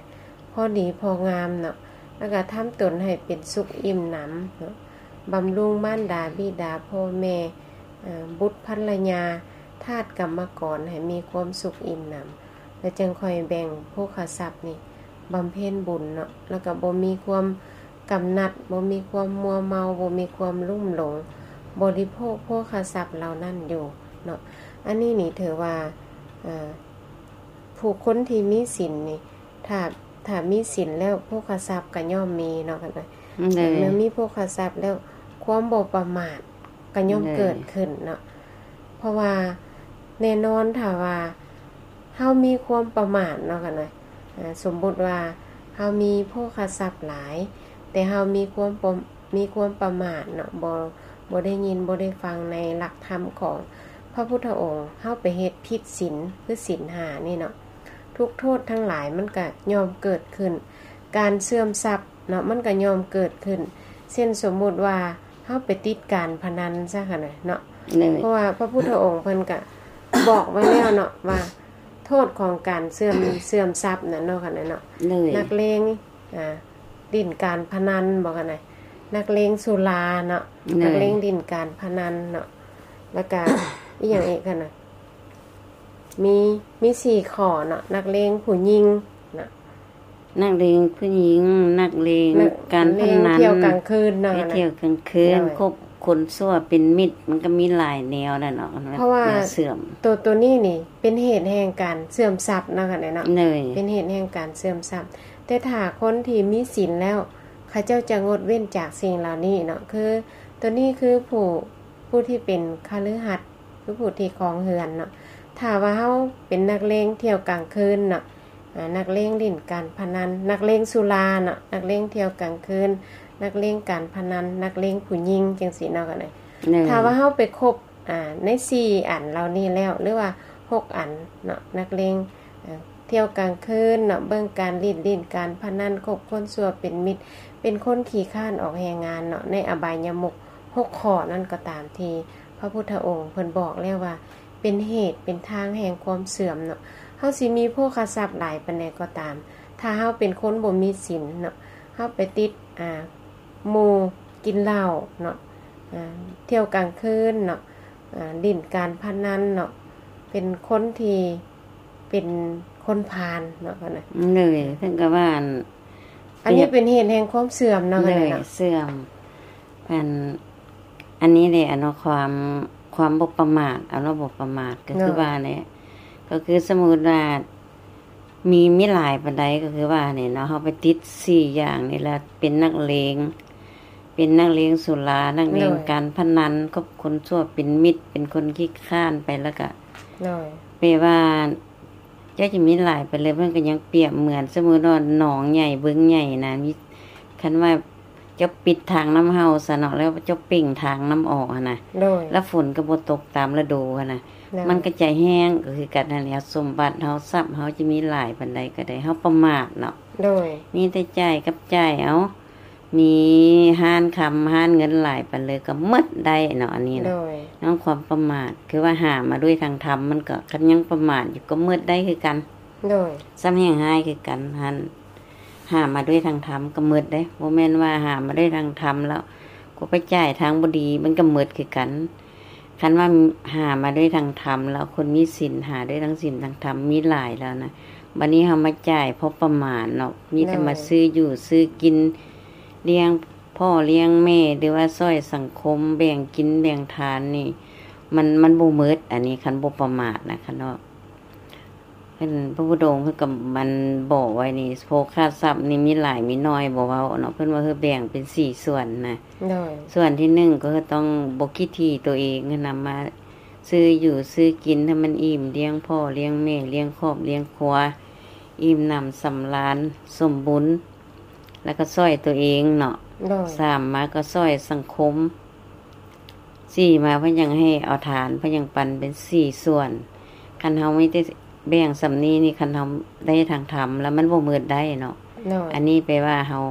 ພໍດີພໍງາມເນາະ ແລ້ວກໍທຳຕົນໃຫ້ເປັນສຸກອີ່ມໜຳເນາະ ບຳລຸງມານດາບິດາພໍ່ແມ່ ເອີ ບຸດພັນລະຍາ ທາດກຳມະກອນໃຫ້ມີຄວາມສຸກອີ່ມໜຳ ແລ້ວຈຶ່ງຄ່ອຍແບ່ງໂພຄະຊັບນີ້ບຳເພັນບຸນເນາະ ແລ້ວກໍບໍ່ມີຄວາມກຳໜັດ ບໍ່ມີຄວາມມົວເມົາ ບໍ່ມີຄວາມລຸ່ມຫຼົງ ບໍລິໂພກໂພຄະຊັບເຫຼົ່ານັ້ນຢູ່ເນາະ ອັນນີ້ນີ້ຖືວ່າ ເອີ ຜູ້ຄົນທີ່ມີສິນນີ້ ຖ້າ ຖ້າມີສິນແລ້ວໂພຄະຊັບກໍຍ່ອມມີເນາະ ຄັນວ່າ ໂດຍ ເມື່ອມີໂພຄະຊັບແລ້ວ ຄວາມບໍ່ປະໝາດກໍຍ່ອມ ໂດຍ ເກີດຂຶ້ນເນາະ ເພາະວ່າແນ່ນອນຖ້າວ່າເຮົາມີຄວາມປະໝາດເນາະ ຄັນວ່າ ເອີ ສົມມຸດວ່າເຮົາມີໂພຄະຊັບຫຼາຍ ແຕ່ເຮົາມີຄວາມປະ ມີຄວາມປະໝາດເນາະ ບໍ່ ບໍ່ໄດ້ຍິນ ບໍ່ໄດ້ຟັງໃນຫຼັກທຳຂອງພະພຸດທະອົງ ເຮົາໄປເຮັດຜິດສິນ ຄືສິນຫ້ານີ້ເນາະ ທຸກໂທດທັງຫຼາຍມັນກະຍ່ອມເກີດຂຶ້ນ ການເສື່ອມຊັບເນາະ ມັນກະຍ່ອມເກີດຂຶ້ນ ເຊັ່ນ ສົມມຸດວ່າ ເຮົາໄປຕິດການພະນັນຊະຫັ້ນນະເນາະ ເພາະວ່າພະພຸດທະອົງເພິ່ນກະບອກໄວ້ແລ້ວເນາະ ວ່າໂທດຂອງການເສື່ອມ ເສື່ອມຊັບນັ້ນເນາະ ຫັ້ນນະເນາະ ນັກເລງ ອ່າ ຫຼິ້ນການພະນັນບໍ ຫັ້ນນະ ນັກເລງສຸລາເນາະ ນັກເລງຫຼິ້ນການພະນັນເນາະ ແລ້ວກະ ອີ່ຫຍັງອີກຫັ້ນນະ ມີ ມີສີ່ຂໍ້ເນາະ ນັກເລງຜູ້ຍິງເນາະ ນັກເລງຜູ້ຍິງ ນັກເລງການພະນັນ ທ່ຽວກາງຄືນເນາະ ໄປທ່ຽວກາງຄືນ ຄົບຄົນຊົ່ວເປັນມິດ ມັນກະມີຫຼາຍແນວແຫຼະເນາະ ເພາະວ່າໂຕ ໂຕນີ້ນີ້ເປັນເຫດແຫ່ງການເສື່ອມຊັບເນາະ ເປັນເຫດແຫ່ງການເສື່ອມຊັບ ແຕ່ຖ້າຄົນທີ່ມີສິນແລ້ວ ເຂົາເຈົ້າຈະງົດເວັ້ນຈາກສິ່ງເຫຼົ່ານີ້ເນາະ ຄື ໂຕນີ້ຄືຜູ້ ຜູ້ທີ່ເປັນຄະລືຫັດ ຄືຜູ້ທີ່ຄອງເຮືອນເນາະ ຖ້າວ່າເຮົາເປັນນັກເລງທ່ຽວກາງຄືນເນາະ ອາ ນັກເລງຫຼິ້ນການພະນັນ ນັກເລງສຸລາເນາະ ນັກເລງທ່ຽວກາງຄືນ ນັກເລງການພະນັນ ນັກເລງຜູ້ຍິງ ຈັ່ງຊີ້ເນາະ ກໍໄດ້ ຖ້າວ່າເຮົາໄປຄົບ ອາ ໃນສີ່ອັນເຫຼົ່ານີ້ແລ້ວ ຫຼືວ່າຫົກອັນເນາະ ນັກເລງ ເອີ ທ່ຽວກາງຄືນເນາະ ເບິ່ງການຫຼິ້ນ ຫຼິ້ນການພະນັນ ຄົບຄົນຊົ່ວເປັນມິດ ເປັນຄົນຂີ້ຄ້ານອອກແຮງງານເນາະ ໃນອະບາຍຍະມຸກຫົກຂໍ້ນັ້ນກໍຕາມ ທີ່ພະພຸດທະອົງເພິ່ນບອກແລ້ວວ່າ ເປັນເຫດເປັນທາງແຫ່ງຄວາມເສື່ອມເນາະ ເຮົາຊິມີໂພຄະຊັບຫຼາຍປານໃດກໍຕາມ ຖ້າເຮົາເປັນຄົນບໍ່ມີສິນເນາະ ເຮົາໄປຕິດ ອາ ໝູ່ກິນເຫຼົ້າເນາະ ອາ ທ່ຽວກາງຄືນເນາະ ອາ ຫຼິ້ນການພະນັນເນາະ ເປັນຄົນທີ່ ເປັນຄົນພານເນາະ ເພິ່ນນະ ເລີຍ ເພິ່ນກໍວ່າ ອັນ ອັນນີ້ເປັນເຫດແຫ່ງຄວາມເສື່ອມເນາະ ເລີຍ ເນາະ ເສື່ອມ ອັນ ອັນນີ້ແຫຼະເນາະ ຄວາມ ຄວາມບໍ່ປະໝາດ ເອົາເນາະ ບໍ່ປະໝາດ ກໍຄືວ່າແຫຼະ ກໍຄືສົມມຸດວ່າ ມີ ມີຫຼາຍປານໃດ ກໍຄືວ່ານີ້ເນາະ ເຮົາໄປຕິດສີ່ຢ່າງນີ້ລະ ເປັນນັກເລງ ເປັນນັກເລງສຸລາ ນັກເລງການພະນັນ ຄົບຄົນຊົ່ວເປັນມິດ ເປັນຄົນຂີ້ຄ້ານໄປ ແລ້ວກະ ແປວ່າ ເຈົ້າຈະມີຫຼາຍປານໃດ ເພິ່ນກໍຍັງປຽບເໝືອນ ສົມມຸດວ່າໜອງໃຫຍ່ບຶງໃຫຍ່ນະ ມີ ຄັນວ່າເຈົ້າປິດທາງນ້ຳເຫົ່າຊະເນາະ ແລ້ວເຈົ້າເປັ່ງທາງນ້ຳອອກຫັ້ນນະ ແລ້ວຝົນກໍບໍ່ຕົກຕາມລະດູຫັ້ນນະ ມັນກໍຈະແຫ້ງ ກໍຄືກັນຫັ້ນແຫຼະ ສົມບັດເຮົາ ຊັບເຮົາຈະມີຫຼາຍປານໃດກໍໄດ້ ເຮົາປະໝາດເນາະ ມີແຕ່ຈ່າຍກັບຈ່າຍເອົາ ມີຮ້ານຄຳຮ້ານເງິນຫຼາຍປານໃດກໍໝົດໄດ້ເນາະ ອັນນີ້ນະ ຍ້ອນຄວາມປະໝາດ ຄືວ່າຫາມາດ້ວຍທາງທຳ ມັນກໍ ຄັນຍັງປະໝາດຢູ່ກໍໝົດໄດ້ຄືກັນ ຊ້ຳແຮ່ງຮ້າຍຄືກັນຫັ້ນ ຫາມາດ້ວຍທາງທຳກໍໝົດເດ້ ບໍ່ແມ່ນວ່າຫາມາດ້ວຍທາງທຳແລ້ວ ກໍໄປຈ່າຍທາງບໍ່ດີ ມັນກໍໝົດຄືກັນ ຄັນວ່າຫາມາດ້ວຍທາງທຳແລ້ວ ຄົນມີສິນຫາດ້ວຍທາງສິນທາງທຳມີຫຼາຍແລ້ວນະ ບັດນີ້ເຮົາມາຈ່າຍພໍປະມານເນາະ ມີແຕ່ມາຊື້ຢູ່ຊື້ກິນ ລ້ຽງພໍ່ລ້ຽງແມ່ ຫຼືວ່າຊ່ອຍສັງຄົມ ແບ່ງກິນແບ່ງທານນີ້ ມັນ ມັນບໍ່ໝົດ ອັນນີ້ຄັນບໍ່ປະໝາດນະ ຄັນເນາະ ເພິ່ນ ພະພຸດທະອົງເພິ່ນກໍ ອັນ ບອກໄວ້ນີ້ ໂພຄະຊັບນີ້ມີຫຼາຍມີໜ້ອຍບໍ່ເວົ້າເນາະ ເພິ່ນວ່າ ເອີ ແບ່ງເປັນສີ່ສ່ວນນະ ສ່ວນທີໜຶ່ງກໍຄືຕ້ອງບໍ່ຂີ້ຖີ່ຕົວເອງຫັ້ນນະ ມາຊື້ຢູ່ຊື້ກິນໃຫ້ມັນອີ່ມ ລ້ຽງພໍ່ລ້ຽງແມ່ ລ້ຽງຄອບລ້ຽງຄົວ ອີ່ມໜຳສຳລານສົມບູນ ແລ້ວກໍຊ່ອຍຕົວເອງເນາະ ສາມມາກໍຊ່ອຍສັງຄົມ ສີ່ມາເພິ່ນຍັງໃຫ້ເອົາທານ ເພິ່ນຍັງປັນເປັນສີ່ສ່ວນ ຄັນເຮົາມີແຕ່ແບ່ງສ່ຳນີ້ນີ້ ຄັນເຮົາໄດ້ທາງທຳແລ້ວມັນບໍ່ໝົດໄດ້ເນາະ ອັນນີ້ແປວ່າເຮົາ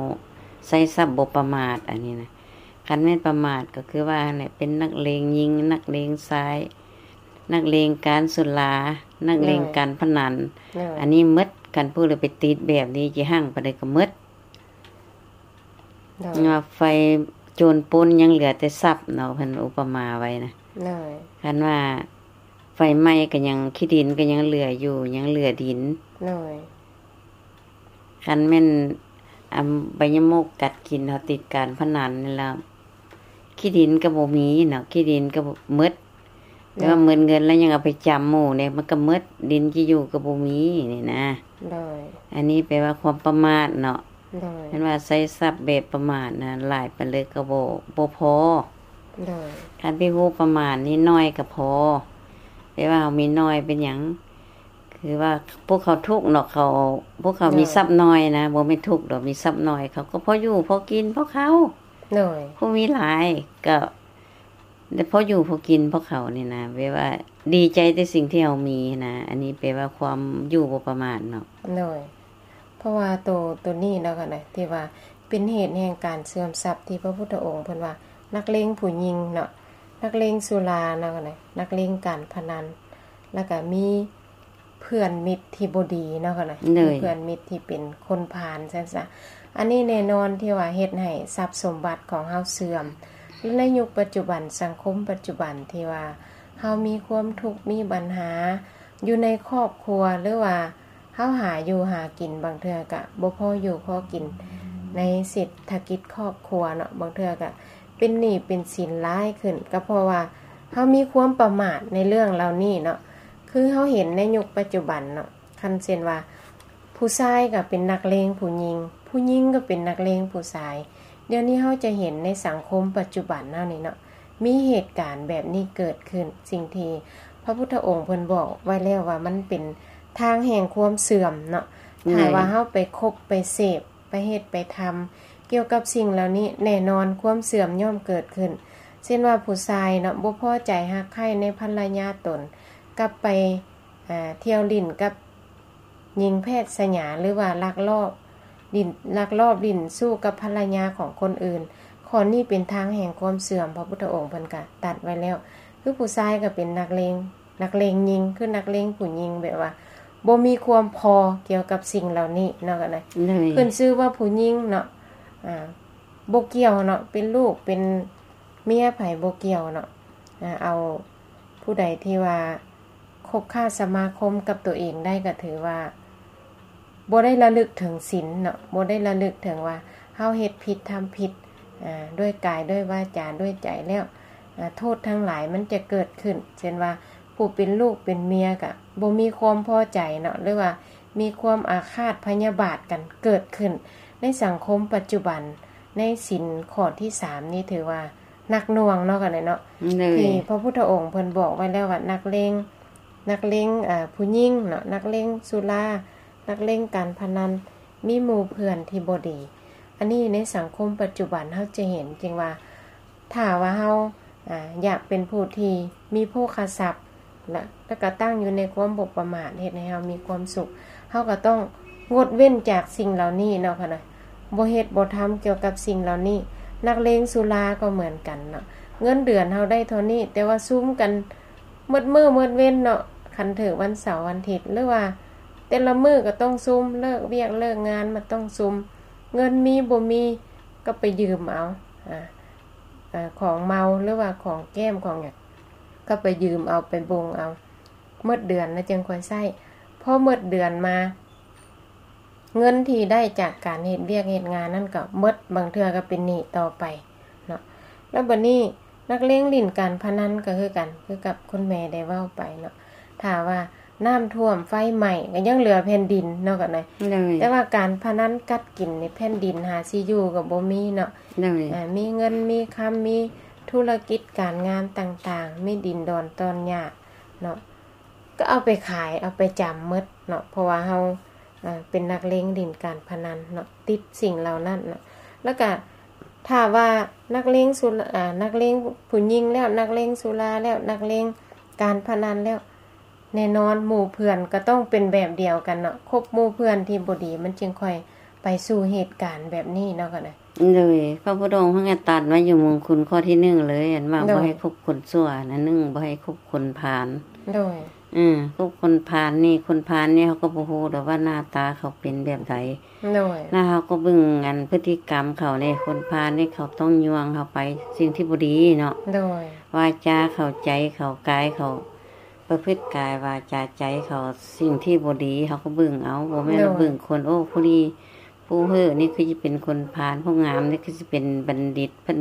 ໃຊ້ຊັບບໍ່ປະໝາດ ອັນນີ້ນະ ຄັນແມ່ນປະໝາດກໍຄືວ່າຫັ້ນແຫຼະ ເປັນນັກເລງຍິງ ນັກເລງຊາຍ ນັກເລງການສຸລາ ນັກເລງການພະນັນ ອັນນີ້ໝົດ ຄັນຜູ້ໃດໄປຕິດແບບນີ້ ຊິຮັ່ງປານໃດກໍໝົດ ເນາະ ໄຟໂຈນປຸ້ນຍັງເຫຼືອແຕ່ຊັບເນາະ ເພິ່ນອຸປະມາໄວ້ນະ ຄັນວ່າໄຟໄໝ້ກໍຍັງ ຂີ້ດິນກໍຍັງເຫຼືອຢູ່ ຍັງເຫຼືອດິນ ຄັນແມ່ນ ອາ ໃບຍະໝົກກັດກິນ ເຮົາຕິດການພະນັນນີ້ແລ້ວ ຂີ້ດິນກໍບໍ່ມີເນາະ ຂີ້ດິນກໍໝົດ ແຕ່ວ່າໝົດເງິນແລ້ວຍັງເອົາໄປຈຳໝູ່ເດ້ ມັນກໍໝົດ ດິນຊິຢູ່ກໍບໍ່ມີນີ້ນະ ອັນນີ້ແປວ່າຄວາມປະໝາດເນາະ ແມ່ນວ່າໃຊ້ຊັບແບບປະໝາດນະ ຫຼາຍປານໃດກໍບໍ່ ບໍ່ພໍ ຄັນໄປຮູ້ປະມານນິດໜ້ອຍກໍພໍ ແຕ່ວ່າເຮົາມີໜ້ອຍເປັນຫຍັງ ຄືວ່າພວກເຂົາທຸກເນາະ ເຂົາ ພວກເຂົາມີຊັບໜ້ອຍນະ ບໍ່ແມ່ນທຸກດອກ ມີຊັບໜ້ອຍ ເຂົາກໍພໍຢູ່ພໍກິນ ພໍເຂົ້າ ໂດຍ ຜູ້ມີຫຼາຍກໍໄດ້ພໍຢູ່ພໍກິນ ພໍເຂົ້ານີ້ນະ ແບບວ່າດີໃຈແຕ່ສິ່ງທີ່ເຮົາມີນະ ອັນນີ້ແປວ່າຄວາມຢູ່ບໍ່ປະໝາດເນາະ. ໂດຍ ເພາະວ່າໂຕ ໂຕນີ້ເນາະ ທີ່ວ່າເປັນເຫດແຫ່ງການເສື່ອມຊັບ ທີ່ພະພຸດທະອົງເພິ່ນວ່າ ນັກເລງຜູ້ຍິງເນາະ ນັກເລງສຸລາເນາະ ນັກເລງການພະນັນ ແລ້ວກໍມີ ເພື່ອນມິດທີ່ບໍ່ດີເນາະ ໂດຍ ມີເພື່ອນມິດທີ່ເປັນຄົນພານຊັ້ນຊະ ອັນນີ້ແນ່ນອນທີ່ວ່າເຮັດໃຫ້ຊັບສົມບັດຂອງເຮົາເສື່ອມ ແລະ ໃນຍຸກປັດຈຸບັນ ສັງຄົມປັດຈຸບັນທີ່ວ່າເຮົາມີຄວາມທຸກ ມີບັນຫາຢູ່ໃນຄອບຄົວ ຫຼືວ່າເຮົາຫາຢູ່ຫາກິນ ບາງເທື່ອກະບໍ່ພໍຢູ່ພໍກິນໃນເສດຖະກິດຄອບຄົວເນາະ ບາງເທື່ອກະເປັນໜີ້ເປັນສິນຫຼາຍຂຶ້ນ ກໍເພາະວ່າເຮົາມີຄວາມປະໝາດໃນເລື່ອງເຫຼົ່ານີ້ເນາະ. ຄືເຮົາເຫັນໃນຍຸກປັດຈຸບັນເນາະ ຄັນເຊັ່ນວ່າຜູ້ຊາຍກໍເປັນນັກເລງຜູ້ຍິງ ຜູ້ຍິງກໍເປັນນັກເລງຜູ້ຊາຍ ດຽວນີ້ເຮົາຈະເຫັນໃນສັງຄົມປັດຈຸບັນເຮົານີ້ເນາະ ມີເຫດການແບບນີ້ເກີດຂຶ້ນ ສິ່ງທີ່ພະພຸດທະອົງເພິ່ນບອກໄວ້ແລ້ວວ່າມັນເປັນທາງແຫ່ງຄວາມເສື່ອມເນາະ ຖ້າວ່າເຮົາໄປຄົບໄປເສບ ໄປເຮັດໄປທຳກ່ຽວກັບສິ່ງເຫຼົ່ານີ້ ແນ່ນອນຄວາມເສື່ອມຍ່ອມເກີດຂຶ້ນ ເຊັ່ນວ່າຜູ້ຊາຍເນາະ ບໍ່ພໍໃຈຮັກໃຄ່ໃນພັນລະຍາຕົນ ກັບໄປ ອາ ທ່ຽວຫຼິ້ນກັບຍິງແພດສະຫຍາ ຫຼືວ່າລັກລອບຫຼິ້ນ ລັກລອບຫຼິ້ນຊູ້ກັບພັນລະຍາຂອງຄົນອື່ນ ຂໍ້ນີ້ເປັນທາງແຫ່ງຄວາມເສື່ອມ ພະພຸດທະອົງເພິ່ນກະຕັດໄວ້ແລ້ວ ຄືຜູ້ຊາຍກໍເປັນນັກເລງ ນັກເລງຍິງ ຄືນັກເລງຜູ້ຍິງ ແບບວ່າບໍ່ມີຄວາມພໍກ່ຽວກັບສິ່ງເຫຼົ່ານີ້ເນາະ ກໍໄດ້ ໂດຍ ຂຶ້ນຊື່ວ່າຜູ້ຍິງເນາະ ອາ ບໍ່ກ່ຽວເນາະ ເປັນລູກເປັນເມຍໃຜບໍ່ກ່ຽວເນາະ ອາ ເອົາຜູ້ໃດທີ່ວ່າຄົບຄ້າສະມາຄົມກັບຕົວເອງໄດ້ ກໍຖືວ່າ ບໍ່ໄດ້ລະລຶກເຖິງສິນເນາະ ບໍ່ໄດ້ລະລຶກເຖິງວ່າເຮົາເຮັດຜິດທຳຜິດ ອາ ດ້ວຍກາຍ ດ້ວຍວາຈາ ດ້ວຍໃຈແລ້ວ ອາ ໂທດທັງຫຼາຍມັນຈະເກີດຂຶ້ນ ເຊັ່ນວ່າຜູ້ເປັນລູກເປັນເມຍກະບໍ່ມີຄວາມພໍໃຈເນາະ ຫຼືວ່າມີຄວາມອາຄາດພະຍາບາດກັນເກີດຂຶ້ນ ໃນສັງຄົມປັດຈຸບັນ ໃນສິນຂໍ້ທີສາມນີ້ຖືວ່າໜັກໜ່ວງເນາະ ກັນເນາະ ໂດຍ ທີ່ພະພຸດທະອົງເພິ່ນບອກໄວ້ແລ້ວວ່າ ນັກເລງ ນັກເລງ ອາ ຜູ້ຍິງເນາະ ນັກເລງສຸລາ ນັກເລງການພະນັນ ມີໝູ່ເພື່ອນທີ່ບໍ່ດີ ອັນນີ້ໃນສັງຄົມປັດຈຸບັນເຮົາຈະເຫັນ ຈຶ່ງວ່າ ຖ້າວ່າເຮົາ ອາ ຢາກເປັນຜູ້ທີ່ມີໂພຄະຊັບ ແລະ ແລ້ວກໍຕັ້ງຢູ່ໃນຄວາມບໍ່ປະໝາດ ເຮັດໃຫ້ເຮົາມີຄວາມສຸກ ເຮົາກໍຕ້ອງງົດເວັ້ນຈາກສິ່ງເຫຼົ່ານີ້ເນາະ ເນາະ ບໍ່ເຮັດບໍ່ທຳກ່ຽວກັບສິ່ງເຫຼົ່ານີ້ ນັກເລງສຸລາກໍເໝືອນກັນເນາະ ເງິນເດືອນເຮົາໄດ້ເທົ່ານີ້ ແຕ່ວ່າຊຸມກັນ ໝົດມື້ໝົດເວັນເນາະ ຄັນຖືກວັນເສົາວັນທິດ ຫຼືວ່າແຕ່ລະມື້ກໍຕ້ອງຊຸມ ເລີກວຽກເລີກງານມາຕ້ອງຊຸມ ເງິນມີບໍ່ມີກໍໄປຢືມເອົາ ອາ ອາ ຂອງເມົາ ຫຼືວ່າຂອງແກ້ມຂອງຫຍັງ ກໍໄປຢືມເອົາ ໄປບົງເອົາ ໝົດເດືອນແລ້ວຈຶ່ງຄ່ອຍໃຊ້ ພໍໝົດເດືອນມາ ເງິນທີ່ໄດ້ຈາກການເຮັດວຽກເຮັດງານນັ້ນກໍໝົດ ບາງເທື່ອກໍເປັນໜີ້ຕໍ່ໄປເນາະ ແລ້ວບັດນີ້ນັກເລງຫຼິ້ນການພະນັນກໍຄືກັນ ຄືກັບຄຸນແມ່ໄດ້ເວົ້າໄປເນາະ ຖ້າວ່ານ້ຳຖ້ວມໄຟໄໝ້ກໍຍັງເຫຼືອແຜ່ນດິນເນາະ ກັນນະ ໂດຍ ແຕ່ວ່າການພະນັນກັດກິນນີ້ແຜ່ນດິນຫາຊິຢູ່ກໍບໍ່ມີເນາະ ໂດຍ ອາ ມີເງິນມີຄຳ ມີທຸລະກິດການງານຕ່າງໆ ມີດິນດອນຕອນຫຍ້າເນາະ ກໍເອົາໄປຂາຍ ເອົາໄປຈຳໝົດເນາະ ເພາະວ່າເຮົາ ເປັນນັກເລງຫຼິ້ນການພະນັນເນາະ ຕິດສິ່ງເຫຼົ່ານັ້ນເນາະ ແລ້ວກະຖ້າວ່ານັກເລງສຸລາ ອາ ນັກເລງຜູ້ຍິງແລ້ວ ນັກເລງສຸລາແລ້ວ ນັກເລງການພະນັນແລ້ວ ແນ່ນອນໝູ່ເພື່ອນກໍຕ້ອງເປັນແບບດຽວກັນເນາະ ຄົບໝູ່ເພື່ອນທີ່ບໍ່ດີ ມັນຈຶ່ງຄ່ອຍໄປສູ່ເຫດການແບບນີ້ເນາະ ກໍໄດ້ ໂດຍ ພະພຸດທະອົງເພິ່ນກໍຕັດໄວ້ຢູ່ມົງຄຸນຂໍ້ທີໜຶ່ງເລີຍ ອັນວ່າ ໂດຍ ບໍ່ໃຫ້ຄົບຄົນຊົ່ວ ອັນໜຶ່ງ ບໍ່ໃຫ້ຄົບຄົນພານ ໂດຍ ເອີ ຄົບຄົນພານນີ້ ຄົນພານນີ້ເຮົາກໍບໍ່ຮູ້ດອກວ່າໜ້າຕາເຂົາເປັນແບບໃດ ໂດຍ ແລ້ວເຮົາກໍເບິ່ງອັນພຶດຕິກຳເຂົາເດ້ ຄົນພານນີ້ເຂົາຕ້ອງຍ່ວງເຮົາໄປສິ່ງທີ່ບໍ່ດີເນາະ ໂດຍ ວາຈາເຂົາ ໃຈເຂົາ ກາຍເຂົາ ປະພຶດກາຍ ວາຈາ ໃຈເຂົາ ສິ່ງທີ່ບໍ່ດີເຮົາກໍເບິ່ງເອົາ ບໍ່ແມ່ນວ່າ ໂດຍ ເບິ່ງຄົນ ໂອ້ ຜູ້ນີ້ ຜູ້ເຮີ້ນີ້ຄືຊິເປັນຄົນພານ ຜູ້ງາມນີ້ຄືຊິເປັນບັນດິດ ເພິ່ນ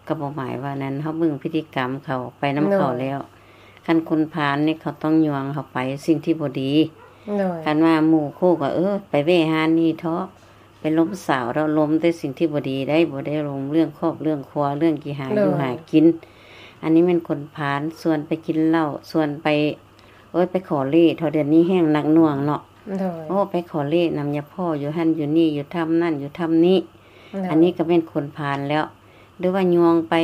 ກໍບໍ່ໝາຍວ່ານັ້ນ ເຮົາເບິ່ງພຶດຕິກຳເຂົາ ໄປນຳເຂົາແລ້ວ ໂດຍ ຄັນຄົນພານນີ້ເຂົາຕ້ອງຍ່ວງເຮົາໄປສິ່ງທີ່ບໍ່ດີ ໂດຍ ຄັນວ່າໝູ່ຄູ່ກໍ ເອີ ໄປແວ່ຮ້ານນີ້ເທາະ ໄປລົມສາວເທາະ ລົມແຕ່ສິ່ງທີ່ບໍ່ດີໄດ໋ ບໍ່ໄດ້ລົມເລື່ອງຄອບເລື່ອງຄົວ ເລື່ອງກິຫາ ໂດຍ ຢູ່ຫາກິນ ອັນນີ້ແມ່ນຄົນພານ ຊວນໄປກິນເຫຼົ້າ ຊວນໄປ ໂອ້ຍ ໄປຂໍເລດ ເທົ່າດຽວນີ້ແຮ່ງໜັກໜ່ວງເນາະ ໂດຍ ໂອ້ ໄປຂໍເລດນຳຍາພໍ່ຢູ່ຫັ້ນຢູ່ນີ້ ຢູ່ຖ້ຳນັ້ນຢູ່ຖ້ຳນີ້ ໂດຍ ອັນນີ້ກໍແມ່ນຄົນພານແລ້ວ ຫຼືວ່າຍ່ວງໄປ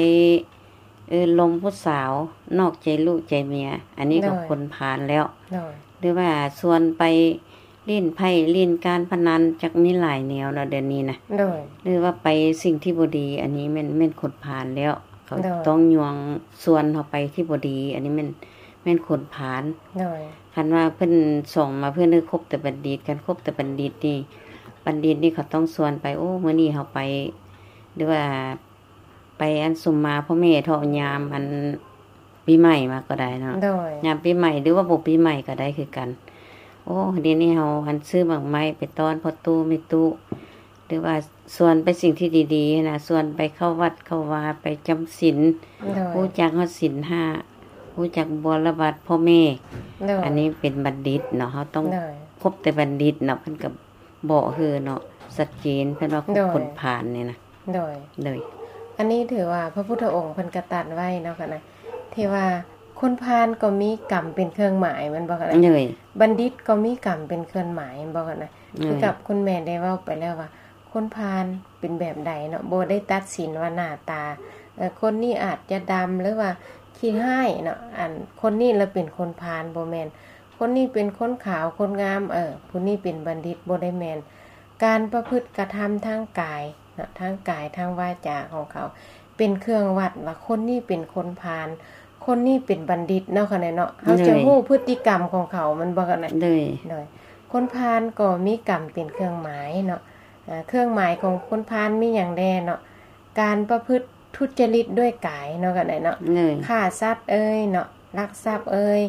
ເອີ ລົມຜູ້ສາວ ນອກໃຈລູກໃຈເມຍ ອັນນີ້ກໍ ໂດຍ ຄົນພານແລ້ວ ໂດຍ ຫຼືວ່າຊວນໄປຫຼິ້ນໄພ້ຫຼິ້ນການພະນັນ ຈັກມີຫຼາຍແນວເນາະດຽວນີ້ນະ ໂດຍ ຫຼືວ່າໄປສິ່ງທີ່ບໍ່ດີ ອັນນີ້ແມ່ນ ແມ່ນຄົນພານແລ້ວ ເຂົາ ໂດຍ ຕ້ອງຍ່ວງຊວນເຮົາໄປທີ່ບໍ່ດີ ອັນນີ້ແມ່ນ ແມ່ນຄົນພານ ໂດຍ ຄັນວ່າເພິ່ນສ່ອງມາ ເພິ່ນໃຫ້ຄົບແຕ່ບັນດິດ ຄັນຄົບແຕ່ບັນດິດນີ້ ບັນດິດນີ້ເຂົາຕ້ອງຊວນໄປ ໂອ້ ມື້ນີ້ເຮົາໄປ ຫຼືວ່າ ໄປອັນສຸມມາພໍ່ແມ່ເທາະຍາມອັນປີໃໝ່ມາກໍໄດ້ເນາະ ໂດຍ ຍາມປີໃໝ່ ຫຼືວ່າບໍ່ປີໃໝ່ກໍໄດ້ຄືກັນ ໂອ້ ດຽວນີ້ເຮົາອັນຊື້ໝາກໄມ້ໄປຕ້ອນພໍ່ຕູ້ແມ່ຕູ້ ຫຼືວ່າຊວນໄປສິ່ງທີ່ດີໆນະ ຊວນໄປເຂົ້າວັດເຂົ້າວາ ໄປຈຳສິນ ໂດຍ ຮູ້ຈັກຮອດສິນຫ້າ ຮູ້ຈັກບົວລະບັດພໍ່ແມ່ ໂດຍ ອັນນີ້ເປັນບັນດິດເນາະ ເຮົາຕ້ອງ ໂດຍ ຄົບແຕ່ບັນດິດເນາະ ເພິ່ນກໍ ເບາະເຮີເນາະ ຊັດເຈນ ເພິ່ນວ່າ ໂດຍ ຄົນພານນີ້ນະ ໂດຍ ໂດຍ ອັນນີ້ຖືວ່າພະພຸດທະອົງເພິ່ນກະຕັດໄວ້ເນາະ ກະນະ ທີ່ວ່າຄົນພານກໍມີກຳເປັນເຄື່ອງໝາຍ ແມ່ນບໍ່ ກະນະ ໂດຍ ບັນດິດກໍມີກຳເປັນເຄື່ອງໝາຍ ແມ່ນບໍ່ ກະນະ ໂດຍ ຄືກັບຄຸນແມ່ໄດ້ເວົ້າໄປແລ້ວວ່າ ຄົນພານເປັນແບບໃດເນາະ ບໍ່ໄດ້ຕັດສິນວ່າໜ້າຕາ ເອີ ຄົນນີ້ອາດຈະດຳ ຫຼືວ່າຂີ້ຮ້າຍເນາະ ອັນ ຄົນນີ້ລະເປັນຄົນພານ ບໍ່ແມ່ນ ຄົນນີ້ເປັນຄົນຂາວຄົນງາມ ເອີ ຜູ້ນີ້ເປັນບັນດິດ ບໍ່ໄດ້ແມ່ນ ການປະພຶດກະທຳທາງກາຍເນາະ ທາງກາຍທາງວາຈາຂອງເຂົາ ເປັນເຄື່ອງວັດວ່າຄົນນີ້ເປັນຄົນພານ ຄົນນີ້ເປັນບັນດິດເນາະ ຂະແນນເນາະ ເຮົາຈະ ໂດຍ ຮູ້ພຶດຕິກຳຂອງເຂົາ ແມ່ນບໍ່ ຂະແນນ ໂດຍ ໂດຍ ຄົນພານກໍມີກຳເປັນເຄື່ອງໝາຍເນາະ ເອີ ເຄື່ອງໝາຍຂອງຄົນພານມີຫຍັງແດ່ເນາະ ການປະພຶດ ທຸດຈະລິດດ້ວຍກາຍເນາະ ກະໄດ້ເນາະ ໂດຍ ຂ້າສັດເອີຍເນາະ ລັກຊັບເອີຍ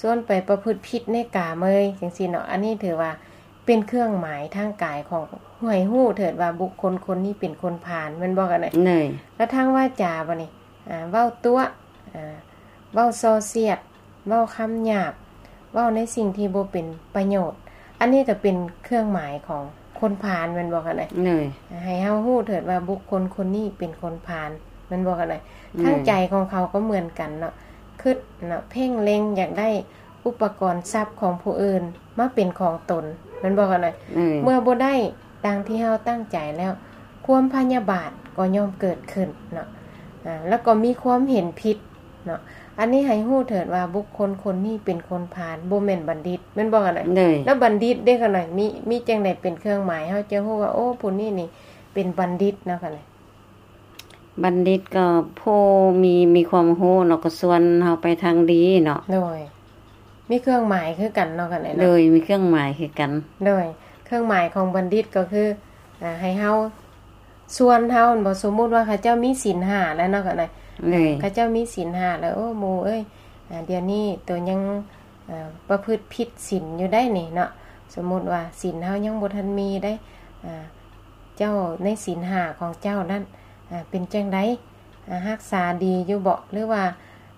ຊວນໄປປະພຶດຜິດໃນກາມເອີຍ ຈັ່ງຊີ້ເນາະ ອັນນີ້ຖືວ່າເປັນເຄື່ອງໝາຍທາງກາຍຂອງ ໃຫ້ຮູ້ເຖີດວ່າບຸກຄົນຄົນນີ້ເປັນຄົນພານ ແມ່ນບໍ່ ກະໄດ້ ໂດຍ ແລ້ວທາງວາຈາບາດນີ້ ອາ ເວົ້າຕົວະ ອາ ເວົ້າສໍ່ສຽດ ເວົ້າຄຳຫຍາບ ເວົ້າໃນສິ່ງທີ່ບໍ່ເປັນປະໂຫຍດ ອັນນີ້ກໍເປັນເຄື່ອງໝາຍຂອງຄົນພານ ແມ່ນບໍ່ ກະໄດ້ ໂດຍ ໃຫ້ເຮົາຮູ້ເຖີດວ່າບຸກຄົນຄົນນີ້ເປັນຄົນພານ ແມ່ນບໍ່ ກະໄດ້ ໂດຍ ທາງໃຈຂອງເຂົາກໍເໝືອນກັນເນາະ ຄິດເນາະ ເພັ່ງເລັງຢາກໄດ້ອຸປະກອນຊັບຂອງຜູ້ອື່ນມາເປັນຂອງຕົນ ແມ່ນບໍ່ ກະໄດ້ ໂດຍ ເມື່ອບໍ່ໄດ້ ດັ່ງທີ່ເຮົາຕັ້ງໃຈແລ້ວ ຄວາມພະຍາບາດກໍຍ່ອມເກີດຂຶ້ນເນາະ ອາ ແລ້ວກໍມີຄວາມເຫັນຜິດເນາະ ອັນນີ້ໃຫ້ຮູ້ເຖີດວ່າບຸກຄົນຄົນນີ້ເປັນຄົນພານ ບໍ່ແມ່ນບັນດິດ ແມ່ນບໍ່ ກະໄດ້ ໂດຍ ແລ້ວບັນດິດເດ້ ກະໄດ້ ມີ ມີຈັ່ງໃດເປັນເຄື່ອງໝາຍ ເຮົາຈະຮູ້ວ່າ ໂອ້ ຜູ້ນີ້ນີ້ເປັນບັນດິດເນາະ ກະໄດ້ ບັນດິດກໍຜູ້ມີ ມີຄວາມຮູ້ເນາະ ກໍຊວນເຮົາໄປທາງດີເນາະ ໂດຍ ມີເຄື່ອງໝາຍຄືກັນເນາະ ກະໄດ້ເນາະ ໂດຍ ມີເຄື່ອງໝາຍຄືກັນ ໂດຍ ເຄື່ອງໝາຍຂອງບັນດິດກໍຄື ອາ ໃຫ້ເຮົາ ຊວນເຮົາ ແມ່ນບໍ່ ສົມມຸດວ່າເຂົາເຈົ້າມີສິນຫ້າແລ້ວເນາະ ກະໄດ້ ໂດຍ ເຂົາເຈົ້າມີສິນຫ້າແລ້ວ ໂອ້ ໝູ່ເອີຍ ອາ ດຽວນີ້ໂຕຍັງ ອາ ປະພຶດຜິດສິນຢູ່ໄດ໋ນີ້ເນາະ ສົມມຸດວ່າສິນເຮົາຍັງບໍ່ທັນມີໄດ໋ ອາ ເຈົ້າໃນສິນຫ້າຂອງເຈົ້ານັ້ນ ອາ ເປັນຈັ່ງໃດ ອາ ຮັກສາດີຢູ່ເບາະ ຫຼືວ່າ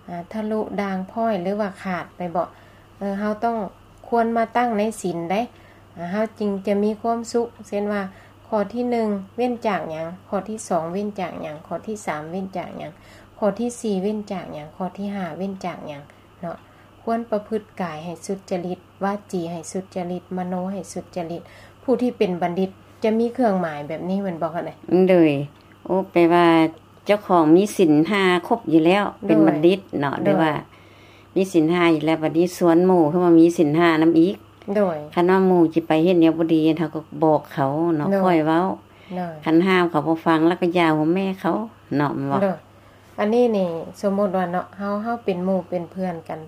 ອາ ທະລຸດ່າງພ້ອຍ ຫຼືວ່າຂາດໄປເບາະ ເອີ ເຮົາຕ້ອງຄວນມາຕັ້ງໃນສິນໃດ໋ ອາ ເຮົາຈຶ່ງຈະມີຄວາມສຸກ ເຊັ່ນວ່າ ຂໍ້ທີໜຶ່ງ ເວັ້ນຈາກຫຍັງ ຂໍ້ທີສອງ ເວັ້ນຈາກຫຍັງ ຂໍ້ທີສາມ ເວັ້ນຈາກຫຍັງ ຂໍ້ທີສີ່ ເວັ້ນຈາກຫຍັງ ຂໍ້ທີຫ້າ ເວັ້ນຈາກຫຍັງເນາະ ຄວນປະພຶດກາຍໃຫ້ສຸດຈະລິດ ວາຈີໃຫ້ສຸດຈະລິດ ມະໂນໃຫ້ສຸດຈະລິດ ຜູ້ທີ່ເປັນບັນດິດຈະມີເຄື່ອງໝາຍແບບນີ້ແມ່ນບໍ່ ກະໄດ້ ໂດຍ ໂອ້ ແປວ່າເຈົ້າຂອງມີສິນຫ້າຄົບຢູ່ແລ້ວ ໂດຍ ເປັນບັນດິດເນາະ ໂດຍ ຫຼືວ່າມີສິນຫ້າຢູ່ແລ້ວ ບັດນີ້ຊວນໝູ່ຄືວ່າມີສິນຫ້ານຳອີກ ໂດຍ ຄັນວ່າໝູ່ຊິໄປເຮັດແນວບໍ່ດີ ເຮົາກໍບອກເຂົາເນາະ ໂດຍ ຄ່ອຍເວົ້າ ໂດຍ ຄັນຫ້າມເຂົາບໍ່ຟັງ ແລ້ວກໍຢ່າຫົວແມ່ເຂົາເນາະ ແມ່ນບໍ່ ໂດຍ ອັນນີ້ນີ້ ສົມມຸດວ່າເນາະ ເຮົາ ເຮົາເປັນໝູ່ເປັນເພື່ອນກັນ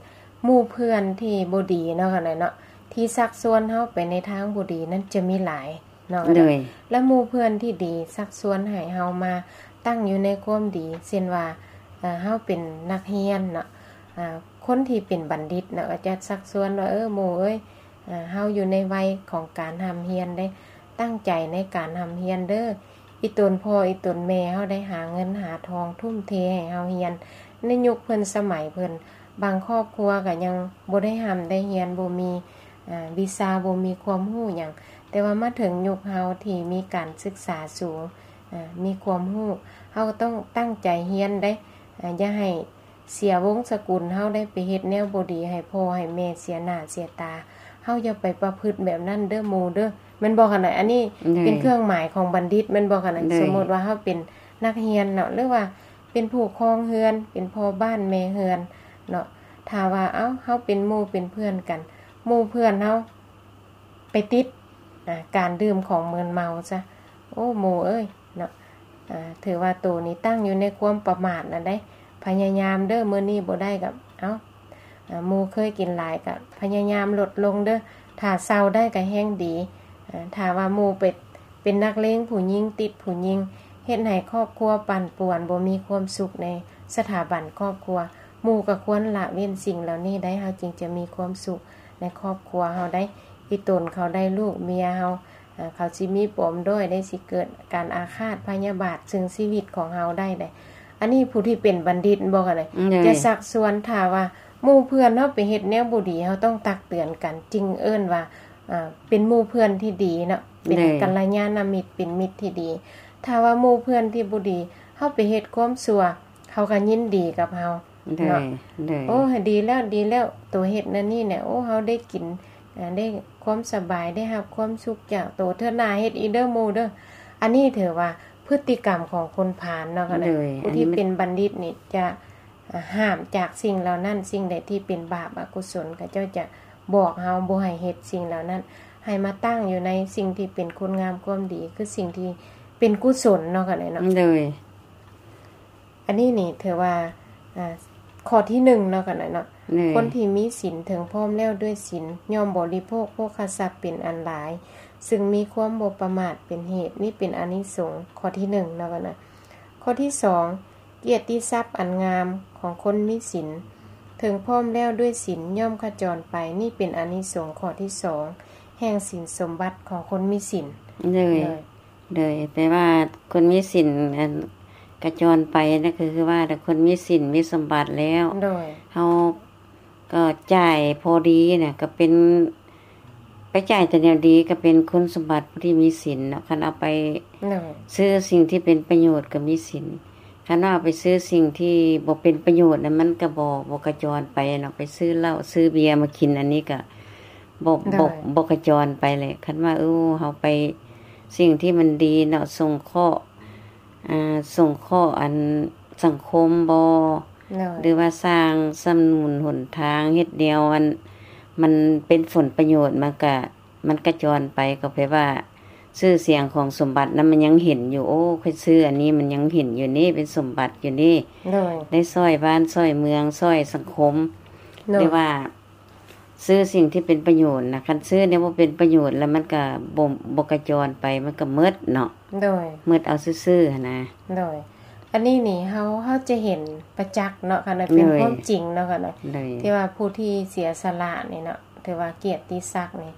ໝູ່ເພື່ອນທີ່ບໍ່ດີເນາະ ກະໄດ້ເນາະ ທີ່ຊັກຊວນເຮົາໄປໃນທາງບໍ່ດີນັ້ນຈະມີຫຼາຍເນາະ ໂດຍ ແລະ ໝູ່ເພື່ອນທີ່ດີຊັກຊວນໃຫ້ເຮົາມາຕັ້ງຢູ່ໃນຄວາມດີ ເຊັ່ນວ່າ ເອີ ເຮົາເປັນນັກຮຽນເນາະ ອາ ຄົນທີ່ເປັນບັນດິດເນາະ ກໍຈະຊັກຊວນວ່າ ເອີ ໝູ່ເອີຍ ອາ ເຮົາຢູ່ໃນໄວຂອງການຮ່ຳຮຽນເດ້ ຕັ້ງໃຈໃນການຮ່ຳຮຽນເດີ ອີຕົນພໍ່ອີຕົນແມ່ເຮົາໄດ້ຫາເງິນຫາທອງ ທຸ່ມເທໃຫ້ເຮົາຮຽນ ໃນຍຸກເພິ່ນສະໄໝເພິ່ນ ບາງຄອບຄົວກໍຍັງບໍ່ໄດ້ຮ່ຳໄດ້ຮຽນ ບໍ່ມີ ອາ ວິຊາ ບໍ່ມີຄວາມຮູ້ຫຍັງ ແຕ່ວ່າມາເຖິງຍຸກເຮົາທີ່ມີການສຶກສາສູງ ອາ ມີຄວາມຮູ້ ເຮົາກໍຕ້ອງຕັ້ງໃຈຮຽນເດ້ ອາ ຢ່າໃຫ້ ເສຍວົງສະກຸນເຮົາໄດ້ໄປເຮັດແນວບໍ່ດີໃຫ້ພໍ່ໃຫ້ແມ່ເສຍໜ້າເສຍຕາ ເຮົາຢ່າໄປປະພຶດແບບນັ້ນເດີໝູ່ເດີ ແມ່ນບໍ່ ຄັນໃດ ອັນນີ້ ໂດຍ ເປັນເຄື່ອງໝາຍຂອງບັນດິດ ແມ່ນບໍ່ ຄັນໃດ ໂດຍ ສົມມຸດວ່າເຮົາເປັນ ນັກຮຽນເນາະ ຫຼືວ່າເປັນຜູ້ຄອງເຮືອນ ເປັນພໍ່ບ້ານແມ່ເຮືອນເນາະ ຖ້າວ່າ ເອົ້າ ເຮົາເປັນໝູ່ເປັນເພື່ອນກັນ ໝູ່ເພື່ອນເຮົາໄປຕິດ ອາ ການດື່ມຂອງມຶນເມົາຊະ ໂອ້ ໝູ່ເອີຍເນາະ ອາ ຖືວ່າໂຕນີ້ຕັ້ງຢູ່ໃນຄວາມປະໝາດນະໄດ໋ ພະຍາຍາມເດີ ມື້ນີ້ບໍ່ໄດ້ກໍ ເອົ້າ ອາ ໝູ່ເຄີຍກິນຫຼາຍກໍພະຍາຍາມລົດລົງເດີ ຖ້າເຊົາໄດ້ກໍແຮ່ງດີ ອາ ຖ້າວ່າໝູ່ໄປ ເປັນນັກເລງຜູ້ຍິງ ຕິດຜູ້ຍິງ ເຮັດໃຫ້ຄອບຄົວປັ່ນປ່ວນ ບໍ່ມີຄວາມສຸກໃນສະຖາບັນຄອບຄົວ ໝູ່ກໍຄວນລະເວັ້ນສິ່ງເຫຼົ່ານີ້ໄດ້ ເຮົາຈຶ່ງຈະມີຄວາມສຸກໃນຄອບຄົວເຮົາໄດ້ ອີ່ຕົນເຂົາໄດ້ລູກເມຍເຮົາ ເຂົາຊິມີປມດ້ອຍໄດ້ ຊິເກີດການອາຄາດພະຍາບາດເຊິ່ງຊີວິດຂອງເຮົາໄດ້ເດ້ ອັນນີ້ຜູ້ທີ່ເປັນບັນດິດບໍ່ ກໍໄດ້ ຈະຊັກຊວນ ຖ້າວ່າໝູ່ເພື່ອນເຮົາໄປເຮັດແນວບໍ່ດີ ເຮົາຕ້ອງຕັກເຕືອນກັນ ຈຶ່ງເອີ້ນວ່າ ອ່າ ເປັນໝູ່ເພື່ອນທີ່ດີເນາະ ເປັນກັນລະຍານະມິດ ເປັນມິດທີ່ດີ ຖ້າວ່າໝູ່ເພື່ອນທີ່ບໍ່ດີ ເຮົາໄປເຮັດຄວາມຊົ່ວ ເຂົາກໍຍິນດີກັບເຮົາເນາະ ໂອ້ ດີແລ້ວ ດີແລ້ວ ໂຕເຮັດນັ້ນນີ້ແຫຼະ ໂອ້ ເຮົາໄດ້ກິນ ອາ ໄດ້ຄວາມສະບາຍ ໄດ້ຮັບຄວາມສຸກຈາກໂຕ ເທື່ອໜ້າເຮັດອີກເດີໝູ່ເດີ ອັນນີ້ຖືວ່າພຶດຕິກຳຂອງຄົນພານເນາະ ກໍໄດ້ ຜູ້ທີ່ເປັນບັນດິດນີ້ຈະ ຫ້າມຈາກສິ່ງເຫຼົ່ານັ້ນ ສິ່ງໃດທີ່ເປັນບາບອະກຸສົນ ເຂົາເຈົ້າຈະບອກເຮົາບໍ່ໃຫ້ເຮັດສິ່ງເຫຼົ່ານັ້ນ ໃຫ້ມາຕັ້ງຢູ່ໃນສິ່ງທີ່ເປັນຄຸນງາມຄວາມດີ ຄືສິ່ງທີ່ເປັນກຸສົນເນາະ ກໍໄດ້ເນາະ ໂດຍ ອັນນີ້ນີ້ຖືວ່າ ອາ ຂໍ້ທີໜຶ່ງເນາະ ກໍໄດ້ເນາະ ຄົນທີ່ມີສິນເຖິງພ້ອມແລ້ວດ້ວຍສິນ ຍ່ອມບໍລິໂພກໂພຄະຊັບເປັນອັນຫຼາຍ ຊຶ່ງມີຄວາມບໍ່ປະໝາດເປັນເຫດ ນີ້ເປັນອານິສົງຂໍ້ທີໜຶ່ງເນາະ ກໍໄດ້ ຂໍ້ທີສອງ ກຽດຕິສັບອັນງາມຂອງຄົນມີສິນ ເຖິງພ້ອມແລ້ວດ້ວຍສິນ ຍ່ອມຂະຈອນໄປ ນີ້ເປັນອານິສົງຂໍ້ທີສອງ ແຫ່ງສິນສົມບັດຂອງຄົນມີສິນ ໂດຍ ໂດຍ ໂດຍ ແປວ່າຄົນມີສິນ ອັນ ຂະຈອນໄປນັ້ນ ກໍຄືວ່າຄົນມີສິນມີສົມບັດແລ້ວ ໂດຍ ເຮົາ ກໍຈ່າຍພໍດີນະ ກໍເປັນ ໄປຈ່າຍແຕ່ແນວດີ ກໍເປັນຄຸນສົມບັດຜູ້ທີ່ມີສິນເນາະ ຄັນເອົາໄປ ໂດຍ ຊື້ສິ່ງທີ່ເປັນປະໂຫຍດກໍມີສິນ ຄັນວ່າເອົາໄປຊື້ສິ່ງທີ່ບໍ່ເປັນປະໂຫຍດນະ ມັນກໍບໍ່ ບໍ່ຂະຈອນໄປເນາະ ໄປຊື້ເຫຼົ້າຊື້ເບຍມາກິນ ອັນນີ້ກໍບໍ່ ໂດຍ ບໍ່ ບໍ່ຂະຈອນໄປແຫຼະ ຄັນວ່າ ເອີ ເຮົາໄປ ສິ່ງທີ່ມັນດີເນາະ ສົງເຄາະ ອ່າ ສົງເຄາະອັນສັງຄົມບໍ ໂດຍ ຫຼືວ່າສ້າງສະໜູນຫົນທາງ ເຮັດແນວອັນມັນເປັນຜົນປະໂຫຍດ ມັນກະ ມັນກະຈອນໄປ ກໍແປວ່າຊື່ສຽງຂອງສົມບັດນັ້ນມັນຍັງເຫັນຢູ່ ໂອ້ ຂ້ອຍຊື້ອັນນີ້ມັນຍັງເຫັນຢູ່ນີ້ ເປັນສົມບັດຢູ່ນີ້ ໂດຍ ໄດ້ຊ່ອຍບ້ານຊ່ອຍເມືອງ ຊ່ອຍສັງຄົມ ໂດຍ ຫຼືວ່າ ຊື້ສິ່ງທີ່ເປັນປະໂຫຍດນະ ຄັນຊື້ແນວບໍ່ເປັນປະໂຫຍດແລ້ວມັນກະບໍ່ ບໍ່ກະຈອນໄປ ມັນກະໝົດເນາະ ໂດຍ ໝົດເອົາຊື່ໆຫັ້ນນະ ໂດຍ ອັນນີ້ນີ້ເຮົາ ເຮົາຈະເຫັນປະຈັກເນາະ ຄັນວ່າເປັນ ໂດຍ ຄວາມຈິງເນາະ ຄັນວ່າ ໂດຍ ທີ່ວ່າຜູ້ທີ່ເສຍສະຫຼະນີ້ເນາະ ຖືວ່າກຽດຕິສັກນີ້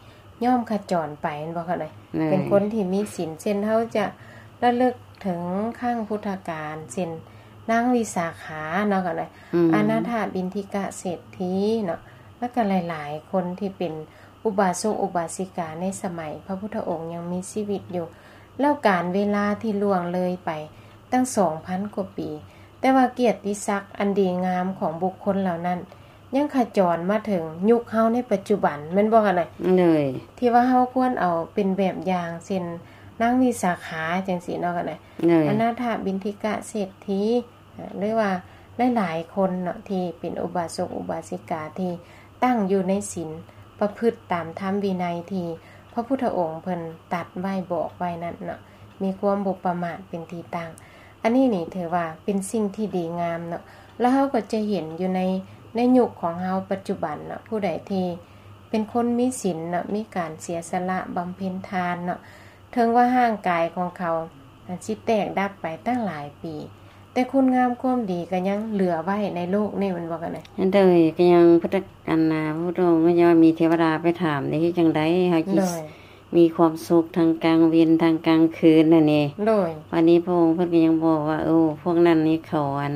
ຍ່ອມຂະຈອນໄປແມ່ນບໍ່ ຄັນວ່າ ໂດຍ ເປັນຄົນທີ່ມີສິນ ເຊັ່ນເຮົາຈະລະລຶກເຖິງຄັ້ງພຸດທະການ ເຊັ່ນ ນາງວິສາຂາເນາະ ຄັນວ່າ ອືມ ອະນາຖະບິນທິກະເສດຖີເນາະ ແລ້ວກໍຫຼາຍໆຄົນທີ່ເປັນອຸບາສົກອຸບາສິກາໃນສະໄໝພະພຸດທະອົງຍັງມີຊີວິດຢູ່ ແລ້ວການເວລາທີ່ລ່ວງເລີຍໄປຕັ້ງສອງພັນກວ່າປີ ແຕ່ວ່າກຽດຕິສັກອັນດີງາມຂອງບຸກຄົນເຫຼົ່ານັ້ນ ຍັງຂະຈອນມາເຖິງຍຸກເຮົາໃນປັດຈຸບັນ ແມ່ນບໍ່ ຄັນວ່າ ໂດຍ ທີ່ວ່າເຮົາຄວນເອົາເປັນແບບຢ່າງ ເຊັ່ນ ນາງວິສາຂາ ຈັ່ງຊີ້ເນາະ ຄັນວ່າ ໂດຍ ອະນາຖະບິນທິກະເສດຖີ ຫຼືວ່າຫຼາຍໆຄົນເນາະ ທີ່ເປັນອຸບາສົກອຸບາສິກາທີ່ຕັ້ງຢູ່ໃນສິນ ປະພຶດຕາມທຳວິໄນທີ່ພະພຸດທະອົງເພິ່ນຕັດໄວ້ບອກໄວ້ນັ້ນເນາະ ມີຄວາມບໍ່ປະໝາດເປັນທີ່ຕັ້ງ ອັນນີ້ນີ້ຖືວ່າເປັນສິ່ງທີ່ດີງາມເນາະ ແລ້ວເຮົາກໍຈະເຫັນຢູ່ໃນ ໃນຍຸກຂອງເຮົາປັດຈຸບັນເນາະ ຜູ້ໃດທີ່ເປັນຄົນມີສິນເນາະ ມີການເສຍສະຫຼະບຳເພັນທານເນາະ ເຖິງວ່າຮ່າງກາຍຂອງເຂົາ ອາດຊິແຕກດັບໄປຕັ້ງຫຼາຍປີ ແຕ່ຄຸນງາມຄວາມດີກໍຍັງເຫຼືອໄວ້ໃນໂລກນີ້ ແມ່ນບໍ່ ຄັນນະ? ໂດຍ ກໍຍັງພຸດທະ ອັນນາ ພະພຸດທະອົງກໍຍັງວ່າມີເທວະດາໄປຖາມເດ້ ເຮັດຈັ່ງໃດເຮົາ ໂດຍ ຊິມີຄວາມສຸກທັງກາງເວັນທັງກາງຄືນຫັ້ນນີ້ ໂດຍ ບາດນີ້ພະອົງເພິ່ນກໍຍັງບອກວ່າ ໂອ້ ພວກນັ້ນນີ້ເຂົາ ອັນ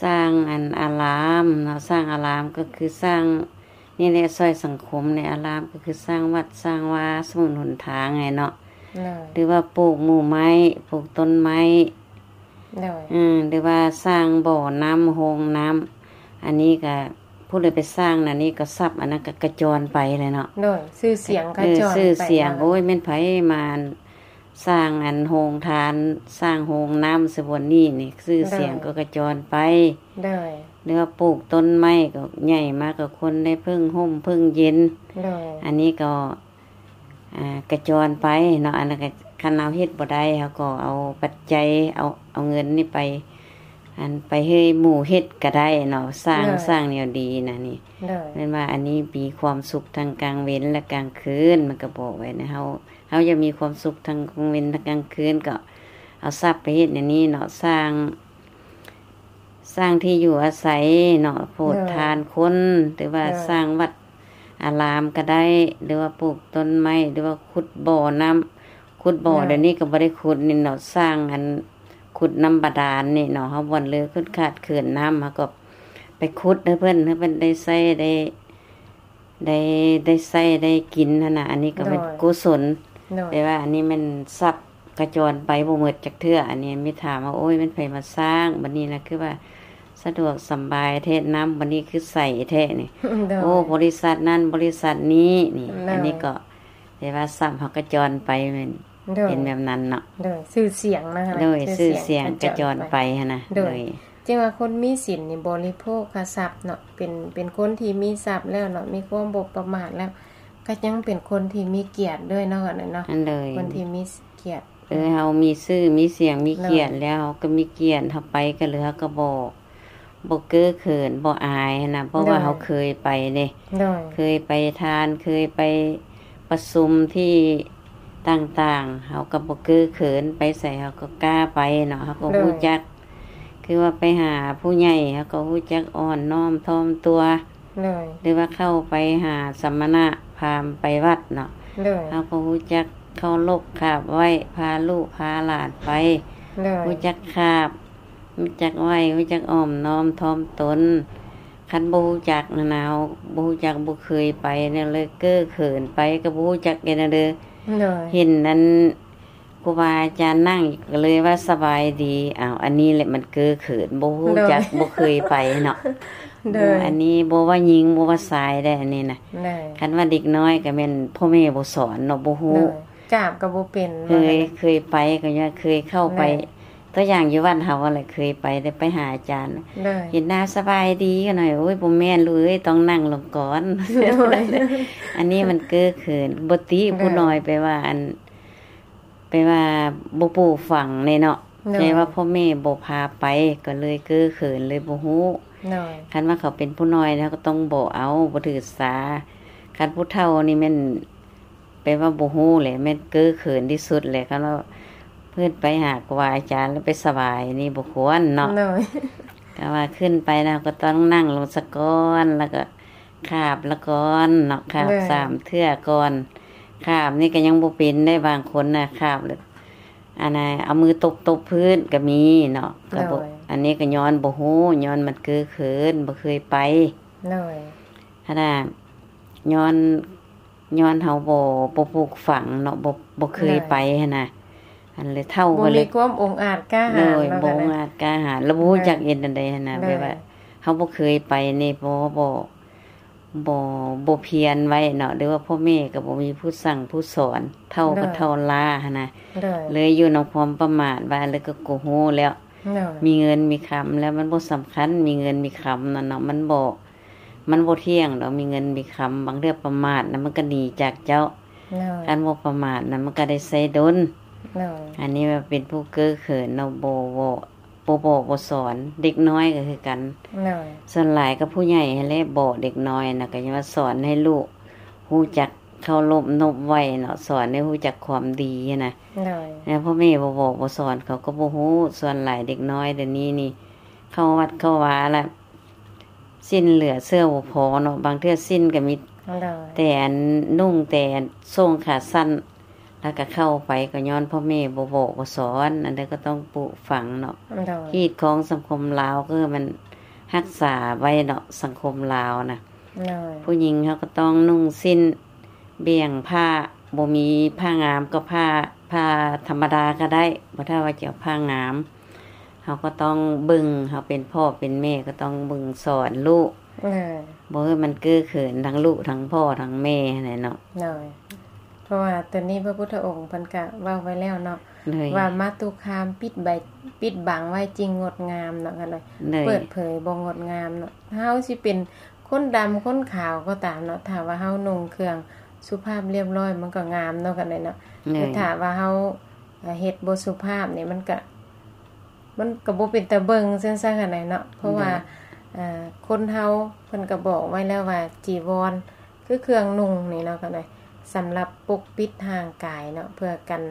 ສ້າງ ອັນ ອາລາມເນາະ ສ້າງອາລາມກໍຄືສ້າງ ນີ້ແຫຼະ ຊ່ອຍສັງຄົມໃນອາລາມ ກໍຄືສ້າງວັດສ້າງວາ ສະໜູນຫົນທາງໃຫ້ເນາະ ໂດຍ ຫຼືວ່າປູກໝູ່ໄມ້ ປູກຕົ້ນໄມ້ ໂດຍ ອືມ ຫຼືວ່າສ້າງບໍ່ນ້ຳ ໂຮງນ້ຳ ອັນນີ້ກະ ຜູ້ໃດໄປສ້າງນັ້ນນີ້ກໍຊັບອັນນັ້ນກໍກະຈອນໄປແຫຼະເນາະ ໂດຍ ຊື່ສຽງກະຈອນໄປ ເອີ ຊື່ສຽງ ໂອ້ຍ ແມ່ນໃຜມາ ສ້າງອັນໂຮງທານ ສ້າງໂຮງນ້ຳໃສ່ບ່ອນນີ້ນີ້ ຊື່ສຽງກໍກະຈອນໄປ. ໂດຍ ຫຼືວ່າປູກຕົ້ນໄມ້ກໍໃຫຍ່ມາກໍຄົນໄດ້ເພິ່ງຮົ່ມເພິ່ງເຢັນ. ໂດຍ ອັນນີ້ກໍ ອ່າ ກະຈອນໄປເນາະ. ອັນນັ້ນກໍຄັນເຮົາເຮັດບໍ່ໄດ້ ເຮົາກໍເອົາປັດໄຈ ເອົາ ເອົາເງິນນີ້ໄປ ອັນ ໄປໃຫ້ໝູ່ເຮັດກໍໄດ້ເນາະ ສ້າງ ໂດຍ ສ້າງແນວດີນະນີ້. ໂດຍ ແມ່ນວ່າອັນນີ້ມີຄວາມສຸກທັງກາງເວັນ ແລະ ກາງຄືນ ມັນກໍບອກໄວ້ນະ ເຮົາ ເຮົາຢາກມີຄວາມສຸກທັງກາງເວັນທັງກາງຄືນ ກໍເອົາຊັບໄປເຮັດແນວນີ້ເນາະ ສ້າງ ສ້າງທີ່ຢູ່ອາໄສເນາະ ໂປດ ໂດຍ ທານຄົນ ຫຼືວ່າ ໂດຍ ສ້າງວັດອາລາມກໍໄດ້ ຫຼືວ່າປູກຕົ້ນໄມ້ ຫຼືວ່າຂຸດບໍ່ນ້ຳ ຂຸດບໍ່ ໂດຍ ດຽວນີ້ກໍບໍ່ໄດ້ຂຸດນີ້ເນາະ ສ້າງອັນ ຂຸດນ້ຳບາດານນີ້ເນາະ ເຮົາບ່ອນເລີຂຶດຂາດເຂີນນ້ຳ ເຮົາກໍໄປຂຸດໃຫ້ເພິ່ນ ໃຫ້ເພິ່ນໄດ້ໃຊ້ໄດ້ ໄດ້ ໄດ້ໃຊ້ໄດ້ກິນຫັ້ນນະ. ອັນນີ້ກໍເປັນ ໂດຍ ກຸສົນ ໂດຍ ແຕ່ວ່າອັນນີ້ແມ່ນຊັບກະຈອນໄປບໍ່ໝົດຈັກເທື່ອ. ອັນນີ້ມີຖາມວ່າ ໂອ້ຍ ແມ່ນໃຜມາສ້າງ? ບັດນີ້ນະ ຄືວ່າສະດວກສຳບາຍແທ້ ນ້ຳບັດນີ້ຄືໃສແທ້ນີ້. ໂດຍ ໂອ້ ບໍລິສັດນັ້ນ ບໍລິສັດນີ້ນີ້. ໂດຍ ອັນນີ້ກໍ ແຕ່ວ່າຊັບເຮົາກະຈອນໄປ ແມ່ນ ໂດຍ ເປັນແບບນັ້ນເນາະ. ໂດຍ ຊື່ສຽງນະ ໂດຍ ຊື່ສຽງກະຈອນໄປຫັ້ນນະ. ໂດຍ ໂດຍ ຈຶ່ງວ່າຄົນມີສິນນີ້ບໍລິໂພກທະລັບເນາະ ເປັນ ເປັນຄົນທີ່ມີຊັບແລ້ວເນາະ ມີຄວາມບໍ່ປະໝາດແລ້ວ ກໍຍັງເປັນຄົນທີ່ມີກຽດດ້ວຍເນາະ ອັນນັ້ນເນາະ. ອັນ ໂດຍ ຄົນທີ່ມີກຽດ ເອີ ເຮົາມີຊື່ມີສຽງມີກຽດ ໂດຍ ແລ້ວ ເຮົາກໍມີກຽດ ເຮົາໄປກັນເລີຍ ເຮົາກໍບໍ່ ບໍ່ເກີເຂີນ ບໍ່ອາຍຫັ້ນນະ ເພາະວ່າ ໂດຍ ເຮົາເຄີຍໄປເດ້. ໂດຍ ເຄີຍໄປທານ ເຄີຍໄປປະຊຸມທີ່ຕ່າງໆ ເຮົາກໍບໍ່ເກີເຂີນ ໄປໃສເຮົາກໍກ້າໄປເນາະ ເຮົາກໍ ໂດຍ ຮູ້ຈັກ ຄືວ່າໄປຫາຜູ້ໃຫຍ່ ເຮົາກໍຮູ້ຈັກອ່ອນນ້ອມຖ່ອມຕົວ. ໂດຍ ຫຼືວ່າເຂົ້າໄປຫາສະມະນະພາມໄປວັດເນາະ ໂດຍ ເຮົາກໍຮູ້ຈັກເຄົາລົບຂາບໄຫວ້ ພາລູກພາຫຼານໄປ ໂດຍ ຮູ້ຈັກຂາບ ຮູ້ຈັກໄຫວ້ ຮູ້ຈັກອ່ອນນ້ອມຖ່ອມຕົນ. ຄັນບໍ່ຮູ້ຈັກນະນາວ ບໍ່ຮູ້ຈັກ ບໍ່ເຄີຍໄປແນວເລີຍ ເກີເຂີນໄປ ກໍບໍ່ຮູ້ຈັກແນວເດີ. ໂດຍ ເຫັນອັນຄູບາອາຈານນັ່ງ ກໍເລີຍວ່າສະບາຍດີ. ອ້າວ ອັນນີ້ແຫຼະມັນເກີເຂີນ ບໍ່ຮູ້ຈັກ ໂດຍ ບໍ່ເຄີຍໄປເນາະ. ໂດຍ ອັນນີ້ບໍ່ວ່າຍິງ ບໍ່ວ່າຊາຍໄດ໋ ອັນນີ້ນະ. ໂດຍ ຄັນວ່າເດັກນ້ອຍກໍແມ່ນພໍ່ແມ່ບໍ່ສອນເນາະ ບໍ່ຮູ້ ໂດຍ ກາບກໍບໍ່ເປັນ ເຄີຍ ເຄີຍໄປກໍຍັງເຄີຍເຂົ້າໄປ ໂດຍ ຕົວຢ່າງຢູ່ວັດເຮົາຫັ້ນແຫຼະ ເຄີຍໄປ ໄດ້ໄປຫາອາຈານ ໂດຍ ເຫັນໜ້າສະບາຍດີກັນໜ້ອຍ ໂອ້ຍ ບໍ່ແມ່ນລູກເອີຍ ຕ້ອງນັ່ງລົງກ່ອນ. ໂດຍ ອັນນີ້ມັນເກີເຂີນ ບໍ່ຕິ ໂດຍ ຜູ້ນ້ອຍ ແປວ່າອັນ ແປວ່າບໍ່ປູກຝັງແນ່ເນາະ ໂດຍ ແຕ່ວ່າພໍ່ແມ່ບໍ່ພາໄປ ກໍເລີຍເກີເຂີນ ເລີຍບໍ່ຮູ້. ໂດຍ ຄັນວ່າເຂົາເປັນຜູ້ນ້ອຍ ເຮົາກໍຕ້ອງບອກເອົາ ບໍ່ຖືສາ. ຄັນຜູ້ເຖົ້ານີ້ແມ່ນ ແປວ່າບໍ່ຮູ້ແຫຼະ ແມ່ນເກີເຂີນທີ່ສຸດແຫຼະ. ຄັນວ່າເພິ່ນໄປຫາຄູບາອາຈານແລ້ວໄປສະບາຍນີ້ບໍ່ຄວນເນາະ. ໂດຍ ແຕ່ວ່າຂຶ້ນໄປນະ ເຮົາກໍຕ້ອງນັ່ງລົງສາກ່ອນ ແລ້ວກໍຂາບລະກ່ອນເນາະ ຂາບ ໂດຍ ສາມເທື່ອກ່ອນ. ຂາບນີ້ກໍຍັງບໍ່ເປັນໄດ໋ ບາງຄົນນະ ຂາບແລ້ວ ອັນນ່າ ເອົາມືຕົບໆພື້ນກໍມີເນາະ ກໍບໍ່ ໂດຍ ອັນນີ້ກໍຍ້ອນບໍ່ຮູ້ ຍ້ອນມັນເກີເຂີນ ບໍ່ເຄີຍໄປ. ໂດຍ ຫັ້ນນະ ຍ້ອນ ຍ້ອນເຮົາບໍ່ ບໍ່ປູກຝັງເນາະ ບໍ່ ບໍ່ເຄີຍ ໂດຍ ໄປຫັ້ນນະ ອັນເລີຍເຖົ້າ ບໍ່ມີ ກໍເລີຍ ຄວາມອົງອາດກ້າຫານ ໂດຍ ເນາະ ບໍ່ອົງອາດກ້າຫານ ແລ້ວບໍ່ຮູ້ ໂດຍ ຈັກເຮັດແນວໃດຫັ້ນນະ ໂດຍ ແບບວ່າເຮົາບໍ່ເຄີຍໄປນີ້ ບໍ່ ບໍ່ ບໍ່ ບໍ່ພຽນໄວ້ເນາະ ຫຼືວ່າພໍ່ແມ່ກໍບໍ່ມີຜູ້ສັ່ງຜູ້ສອນ ເຖົ້າກໍ ໂດຍ ເຖົ້າລ້າຫັ້ນນະ ໂດຍ ເລີຍຢູ່ນຳຄວາມປະໝາດ ວ່າແລ້ວກໍ ກໍຮູ້ແລ້ວ ໂດຍ ມີເງິນມີຄຳແລ້ວມັນບໍ່ສຳຄັນ ມີເງິນມີຄຳນັ້ນເນາະ ມັນບໍ່ ມັນບໍ່ທ່ຽງດອກ ມີເງິນມີຄຳ ບາງເທື່ອປະໝາດນະ ມັນກໍໜີຈາກເຈົ້າ. ໂດຍ ຄັນບໍ່ປະໝາດນະ ມັນກໍໄດ້ໃຊ້ດົນ. ໂດຍ ອັນນີ້ວ່າເປັນຜູ້ເກີເຂີນເນາະ ບໍ່ ບໍ່ ບໍ່ບອກບໍ່ສອນ ເດັກນ້ອຍກໍຄືກັນ. ໂດຍ ສ່ວນຫຼາຍກໍຜູ້ໃຫຍ່ຫັ້ນແຫຼະບອກເດັກນ້ອຍນະ ກໍຍັງວ່າສອນໃຫ້ລູກຮູ້ຈັກເຄົາລົບນົບໄຫວ້ເນາະ ສອນໃຫ້ຮູ້ຈັກຄວາມດີຫັ້ນນະ. ໂດຍ ແລ້ວພໍ່ແມ່ບໍ່ບອກບໍ່ສອນ ເຂົາກໍບໍ່ຮູ້. ສ່ວນຫຼາຍເດັກນ້ອຍດຽວນີ້ນີ້ ເຂົ້າວັດເຂົ້າວາລະ ສິ້ນເຫຼືອເສື້ອບໍ່ພໍເນາະ ບາງເທື່ອສິ້ນກໍມີ ໂດຍ ແຕ່ອັນນຸ່ງແຕ່ອັນໂສ້ງຂາສັ້ນ ແລ້ວກໍເຂົ້າໄປ ກໍຍ້ອນພໍ່ແມ່ບໍ່ບອກບໍ່ສອນ. ອັນໃດກໍຕ້ອງປູກຝັງເນາະ ໂດຍ ຮີດຄອງສັງຄົມລາວ ຄືມັນຮັກສາໄວ້ເນາະ ສັງຄົມລາວນະ. ໂດຍ ຜູ້ຍິງເຮົາກໍຕ້ອງນຸ່ງສິ້ນ ບ່ຽງຜ້າ ບໍ່ມີຜ້າງາມກໍຜ້າ ຜ້າທຳມະດາກໍໄດ້ ບໍ່ຖ້າວ່າຈະເອົາຜ້າງາມ ເຮົາກໍຕ້ອງເບິ່ງ ເຮົາເປັນພໍ່ເປັນແມ່ກໍຕ້ອງເບິ່ງສອນລູກ ໂດຍ ບໍ່ໃຫ້ມັນເກີເຂີນທັງລູກທັງພໍ່ທັງແມ່ຫັ້ນແຫຼະເນາະ. ໂດຍ ພາະວ່າໂຕນີ້ພະພຸດທະອົງເພິ່ນກະເວົ້າໄວ້ແລ້ວເນາະ ໂດຍ ວ່າມາຕຸຄາມປິດໃບ ປິດບັງໄວ້ຈຶ່ງງົດງາມເນາະ ກໍເລີຍ ໂດຍ ເປີດເຜີຍບໍ່ງົດງາມເນາະ. ເຮົາຊິເປັນຄົນດຳຄົນຂາວກໍຕາມເນາະ ຖ້າວ່າເຮົານຸ່ງເຄື່ອງສຸພາບລຽບລ້ອຍ ມັນກໍງາມເນາະ ກັນເລີຍເນາະ ໂດຍ ແຕ່ຖ້າວ່າເຮົາ ເຮັດບໍ່ສຸພາບນີ້ ມັນກະ ມັນກະບໍ່ເປັນຕາເບິ່ງຊັ້ນຊະ ກັນເລີຍເນາະ ເພາະວ່າ ໂດຍ ເອີ ຄົນເຮົາເພິ່ນກະບອກໄວ້ແລ້ວວ່າ ຈີວອນຄືເຄື່ອງນຸ່ງນີ້ເນາະ ກັນເລີຍ ສຳລັບປົກປິດຮ່າງກາຍເນາະ ເພື່ອກັນ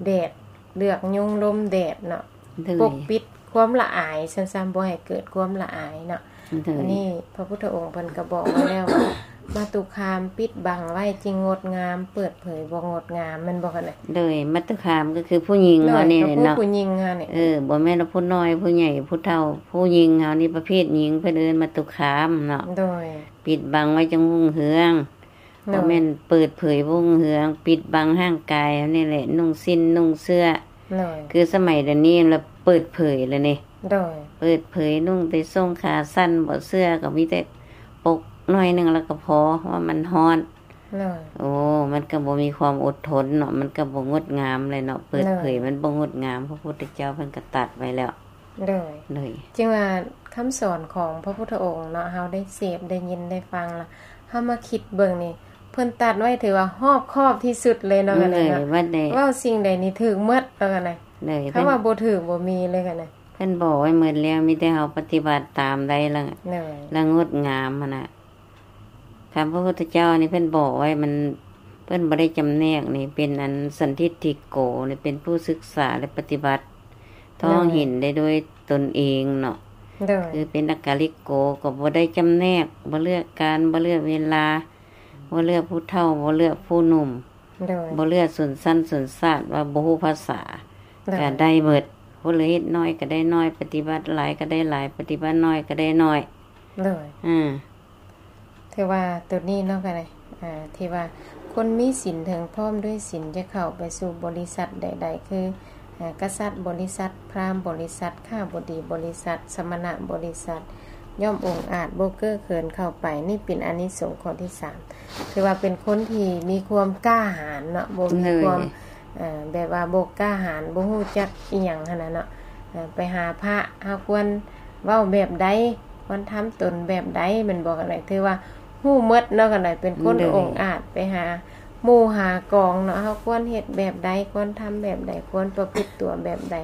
ແດດ ເລືອກຍຸງລົມແດດເນາະ ໂດຍ ປົກປິດຄວາມລະອາຍຊັ້ນຊະ ບໍ່ໃຫ້ເກີດຄວາມລະອາຍເນາະ ໂດຍ ອັນນີ້ພະພຸດທະອົງເພິ່ນກະບອກໄວ້ແລ້ວວ່າ ມາຕຸຄາມປິດບັງໄວ້ຈຶ່ງງົດງາມ ເປີດເຜີຍບໍ່ງົດງາມ ແມ່ນບໍ່ ກັນເລີຍ? ໂດຍ ມາຕຸຄາມກໍຄືຜູ້ຍິງເຮົານີ້ແຫຼະເນາະ ຜູ້ຍິງເຮົານີ້ ເອີ ບໍ່ແມ່ນວ່າຜູ້ນ້ອຍຜູ້ໃຫຍ່ຜູ້ເຖົ້າ ຜູ້ຍິງເຮົານີ້ ປະເພດຍິງ ເພິ່ນເອີ້ນມາຕຸຄາມເນາະ ໂດຍ ປິດບັງໄວ້ຈັ່ງຮຸ່ງເຮືອງ ໂດຍ ບໍ່ແມ່ນເປີດເຜີຍຮຸ່ງເຮືອງ ປິດບັງຮ່າງກາຍເຮົານີ້ແຫຼະ ນຸ່ງສິ້ນນຸ່ງເສື້ອ ໂດຍ ຄືສະໄໝດຽວນີ້ລະເປີດເຜີຍແລ້ວນີ້ ໂດຍ ເປີດເຜີຍນຸ່ງແຕ່ສົ້ງຂາສັ້ນ ບໍ່ເສື້ອກໍມີແຕ່ປົກໜ້ອຍໜຶ່ງແລ້ວກໍພໍ ເພາະວ່າມັນຮ້ອນ ໂດຍ ໂອ້ ມັນກໍບໍ່ມີຄວາມອົດທົນເນາະ ມັນກໍບໍ່ງົດງາມແຫຼະເນາະ ເປີດເຜີຍ ໂດຍ ມັນບໍ່ງົດງາມ ພະພຸດທະເຈົ້າເພິ່ນກໍຕັດໄວ້ແລ້ວ ໂດຍ ໂດຍ ຈຶ່ງວ່າຄຳສອນຂອງພະພຸດທະອົງເນາະ ເຮົາໄດ້ເສບ ໄດ້ຍິນ ໄດ້ຟັງລະ ເຮົາມາຄິດເບິ່ງນີ້ ເພິ່ນຕັດໄວ້ຖືວ່າຮອບຄອບທີ່ສຸດເລີຍເນາະ ໂດຍ ກັນເລີຍເນາະ ເວົ້າສິ່ງໃດນີ້ຖືກໝົດເນາະ ກັນເລີຍ ໂດຍ ຄຳວ່າບໍ່ຖືກບໍ່ມີເລີຍ ກັນເລີຍ ເພິ່ນບອກໄວ້ໝົດແລ້ວ ມີແຕ່ເຮົາປະຕິບັດຕາມໄດ້ລະ ໂດຍ ລະງົດງາມຫັ້ນນະ. ຄຳພະພຸດທະເຈົ້ານີ້ເພິ່ນບອກໄວ້ ມັນ ເພິ່ນບໍ່ໄດ້ຈຳແນກນີ້ ເປັນອັນສັນທິດຖິໂກນີ້ ເປັນຜູ້ສຶກສາ ແລະ ປະຕິບັດ ໂດຍ ທ້ອງເຫັນໄດ້ດ້ວຍຕົນເອງເນາະ ໂດຍ ຄືເປັນອາກາລິໂກ ກໍບໍ່ໄດ້ຈຳແນກ ບໍ່ເລືອກການ ບໍ່ເລືອກເວລາ ບໍ່ເລືອກຜູ້ເຖົ້າ ບໍ່ເລືອກຜູ້ໜຸ່ມ ໂດຍ ບໍ່ເລືອກຊົນຊັ້ນຊົນຊາດ ວ່າບໍ່ຮູ້ພາສາ ໂດຍ ກໍໄດ້ໝົດ ຜູ້ລະເຮັດໜ້ອຍກໍໄດ້ໜ້ອຍ ປະຕິບັດຫຼາຍກໍໄດ້ຫຼາຍ ປະຕິບັດໜ້ອຍກໍໄດ້ໜ້ອຍ ໂດຍ ອາ ຖືວ່າໂຕນີ້ເນາະ ກໍໄດ້ ອາ ທີ່ວ່າຄົນມີສິນເຖິງພ້ອມດ້ວຍສິນ ຈະເຂົ້າໄປສູ່ບໍລິສັດໃດໆ ຄື ອາ ກະສັດບໍລິສັດ ພຣາມບໍລິສັດ ຂ້າບໍດີບໍລິສັດ ສະມະນະບໍລິສັດ ຍ່ອມອົງອາດ ບໍ່ເກີເຂີນເຂົ້າໄປ. ນີ້ເປັນອານິສົງຂໍ້ທີສາມ ຖືວ່າເປັນຄົນທີ່ມີຄວາມກ້າຫານເນາະ ບໍ່ມີຄວາມ ໂດຍ ເອີ ແບບວ່າບໍ່ກ້າຫານ ບໍ່ຮູ້ຈັກອີ່ຫຍັງຫັ້ນນະເນາະ ເອີ ໄປຫາພະ ເຮົາຄວນເວົ້າແບບໃດ ຄວນທຳຕົນແບບໃດ ແມ່ນບໍ່ ກັນໄດ້ ຖືວ່າຮູ້ໝົດເນາະ ກັນໄດ້ ເປັນຄົນ ໂດຍ ອົງອາດ ໄປຫາໝູ່ຫາກອງເນາະ ເຮົາຄວນເຮັດແບບໃດ ຄວນທຳແບບໃດ ຄວນປະພຶດຕົວແບບໃດ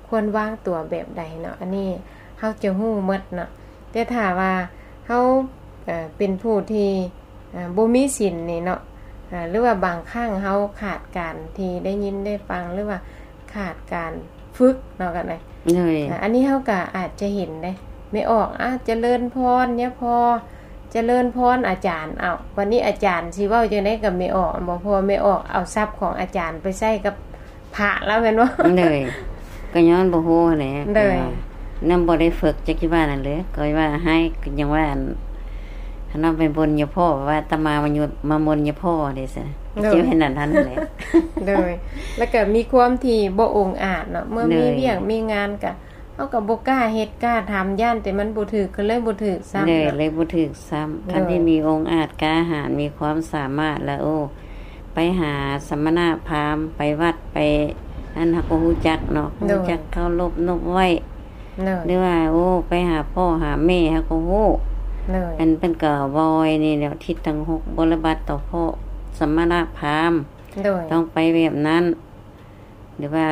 ຄວນວາງຕົວແບບໃດເນາະ ອັນນີ້ເຮົາຈະຮູ້ໝົດເນາະ. ແຕ່ຖ້າວ່າເຮົາ ເອີ ເປັນຜູ້ທີ່ ອາ ບໍ່ມີສິນນີ້ເນາະ ອາ ຫຼືວ່າບາງຄັ້ງເຮົາຂາດການທີ່ໄດ້ຍິນໄດ້ຟັງ ຫຼືວ່າຂາດການຝຶກເນາະ ກັນໄດ໋ ໂດຍ ອາ ອັນນີ້ເຮົາກໍອາດຈະເຫັນເດ້ ແມ່ອອກ ອາ ຈະເລີນພອນຍາພໍ່ ຈະເລີນພອນອາຈານ ເອົ້າ ບັດນີ້ອາຈານຊິເວົ້າຈັ່ງໃດກັບແມ່ອອກ ບໍ່ ເພາະວ່າແມ່ອອກເອົາສັບຂອງອາຈານໄປໃຊ້ກັບ ພະລະແມ່ນບໍ່? ໂດຍ ກໍຍ້ອນບໍ່ຮູ້ຫັ້ນແຫຼະ ໂດຍ ຍັງບໍ່ໄດ້ຝຶກ ຈັກຊິວ່ານັ້ນເລີຍ ກໍວ່າໃຫ້ ຍັງວ່າ ອັນ ຄັນວ່າໄປບົນຍາພໍ່ ວ່າອາດຕະມາມາຍຸ ມາມົນຍາພໍ່ເດ້ຊັ້ນ ໂດຍ ຊິເຮັດນັ້ນຫັ້ນແຫຼະ ໂດຍ ແລ້ວກໍມີຄວາມທີ່ບໍ່ອົງອາດເນາະ ເມື່ອມີ ໂດຍ ວຽກມີງານກໍ ເຮົາກໍບໍ່ກ້າເຮັດກ້າທຳ ຢ້ານແຕ່ມັນບໍ່ຖືກ ກໍເລີຍບໍ່ຖືກຊ້ຳ ເລີຍ ເນາະ ເລີຍບໍ່ຖືກຊ້ຳ ໂດຍ ຄັນທີ່ມີອົງອາດກ້າຫານ ມີຄວາມສາມາດລະ ໂອ້ ໄປຫາສະມະນະພາມ ໄປວັດ ໄປ ອັນ ເຮົາກໍຮູ້ຈັກເນາະ ໂດຍ ຮູ້ຈັກເຄົາລົບນົບໄຫວ້ ໂດຍ ຫຼືວ່າ ໂອ້ ໄປຫາພໍ່ຫາແມ່ ເຮົາກໍຮູ້ ໂດຍ ອັນເພິ່ນກໍເວົ້າໄວ້ນີ້ແຫຼະ ທິດທັງຫົກ ບໍລິບັດຕໍ່ພໍ່ສະມະນະພາມ ໂດຍ ຕ້ອງໄປແບບນັ້ນ ຫຼືວ່າ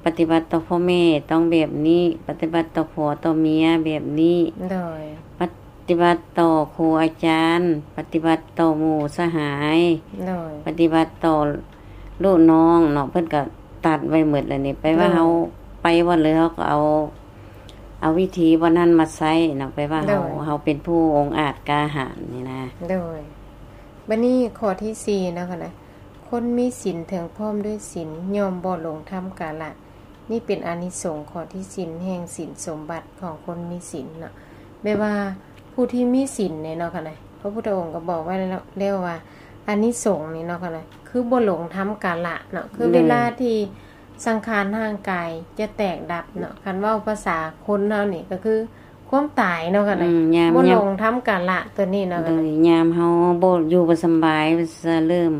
ປະຕິບັດຕໍ່ພໍ່ແມ່ຕ້ອງແບບນີ້ ປະຕິບັດຕໍ່ຜົວຕໍ່ເມຍແບບນີ້ ໂດຍ ປະຕິບັດຕໍ່ຄູອາຈານ ປະຕິບັດຕໍ່ໝູ່ສະຫາຍ ໂດຍ ປະຕິບັດຕໍ່ລູກນ້ອງເນາະ ເພິ່ນກໍຕັດໄວ້ໝົດແລ້ວນີ້ ໄປວ່າ ໂດຍ ເຮົາໄປບ່ອນໃດ ເຮົາກໍເອົາ ເອົາວິທີບ່ອນນັ້ນມາໃຊ້ເນາະ ໄປວ່າເຮົາ ໂດຍ ເຮົາເປັນຜູ້ອົງອາດກ້າຫານນີ້ນະ ໂດຍ ບັດນີ້ຂໍ້ທີສີ່ເນາະ ຄົນມີສິນເຖິງພ້ອມດ້ວຍສິນ ຍ່ອມບໍ່ຫຼົງທຳກາລະ. ນີ້ເປັນອານິສົງຂໍ້ທີ່ສິນແຫ່ງສິນສົມບັດຂອງຄົນມີສິນເນາະ ແບບວ່າຜູ້ທີ່ມີສິນນີ້ເນາະ ພະພຸດທະອົງກໍບອກໄວ້ແລ້ວວ່າ ອານິສົງນີ້ເນາະ ຄືບໍ່ຫຼົງທຳກາລະເນາະ ຄືເວລາທີ່ສັງຂານຮ່າງກາຍຈະແຕກດັບເນາະ ຄັນເວົ້າພາສາຄົນເຮົານີ້ກໍຄື ຄວາມຕາຍເນາະ ອືມ ຍາມ ບໍ່ຫຼົງທຳກາລະຕົວນີ້ເນາະ ໂດຍ ຍາມເຮົາບໍ່ຢູ່ບໍ່ສຳບາຍ ເລີ່ມ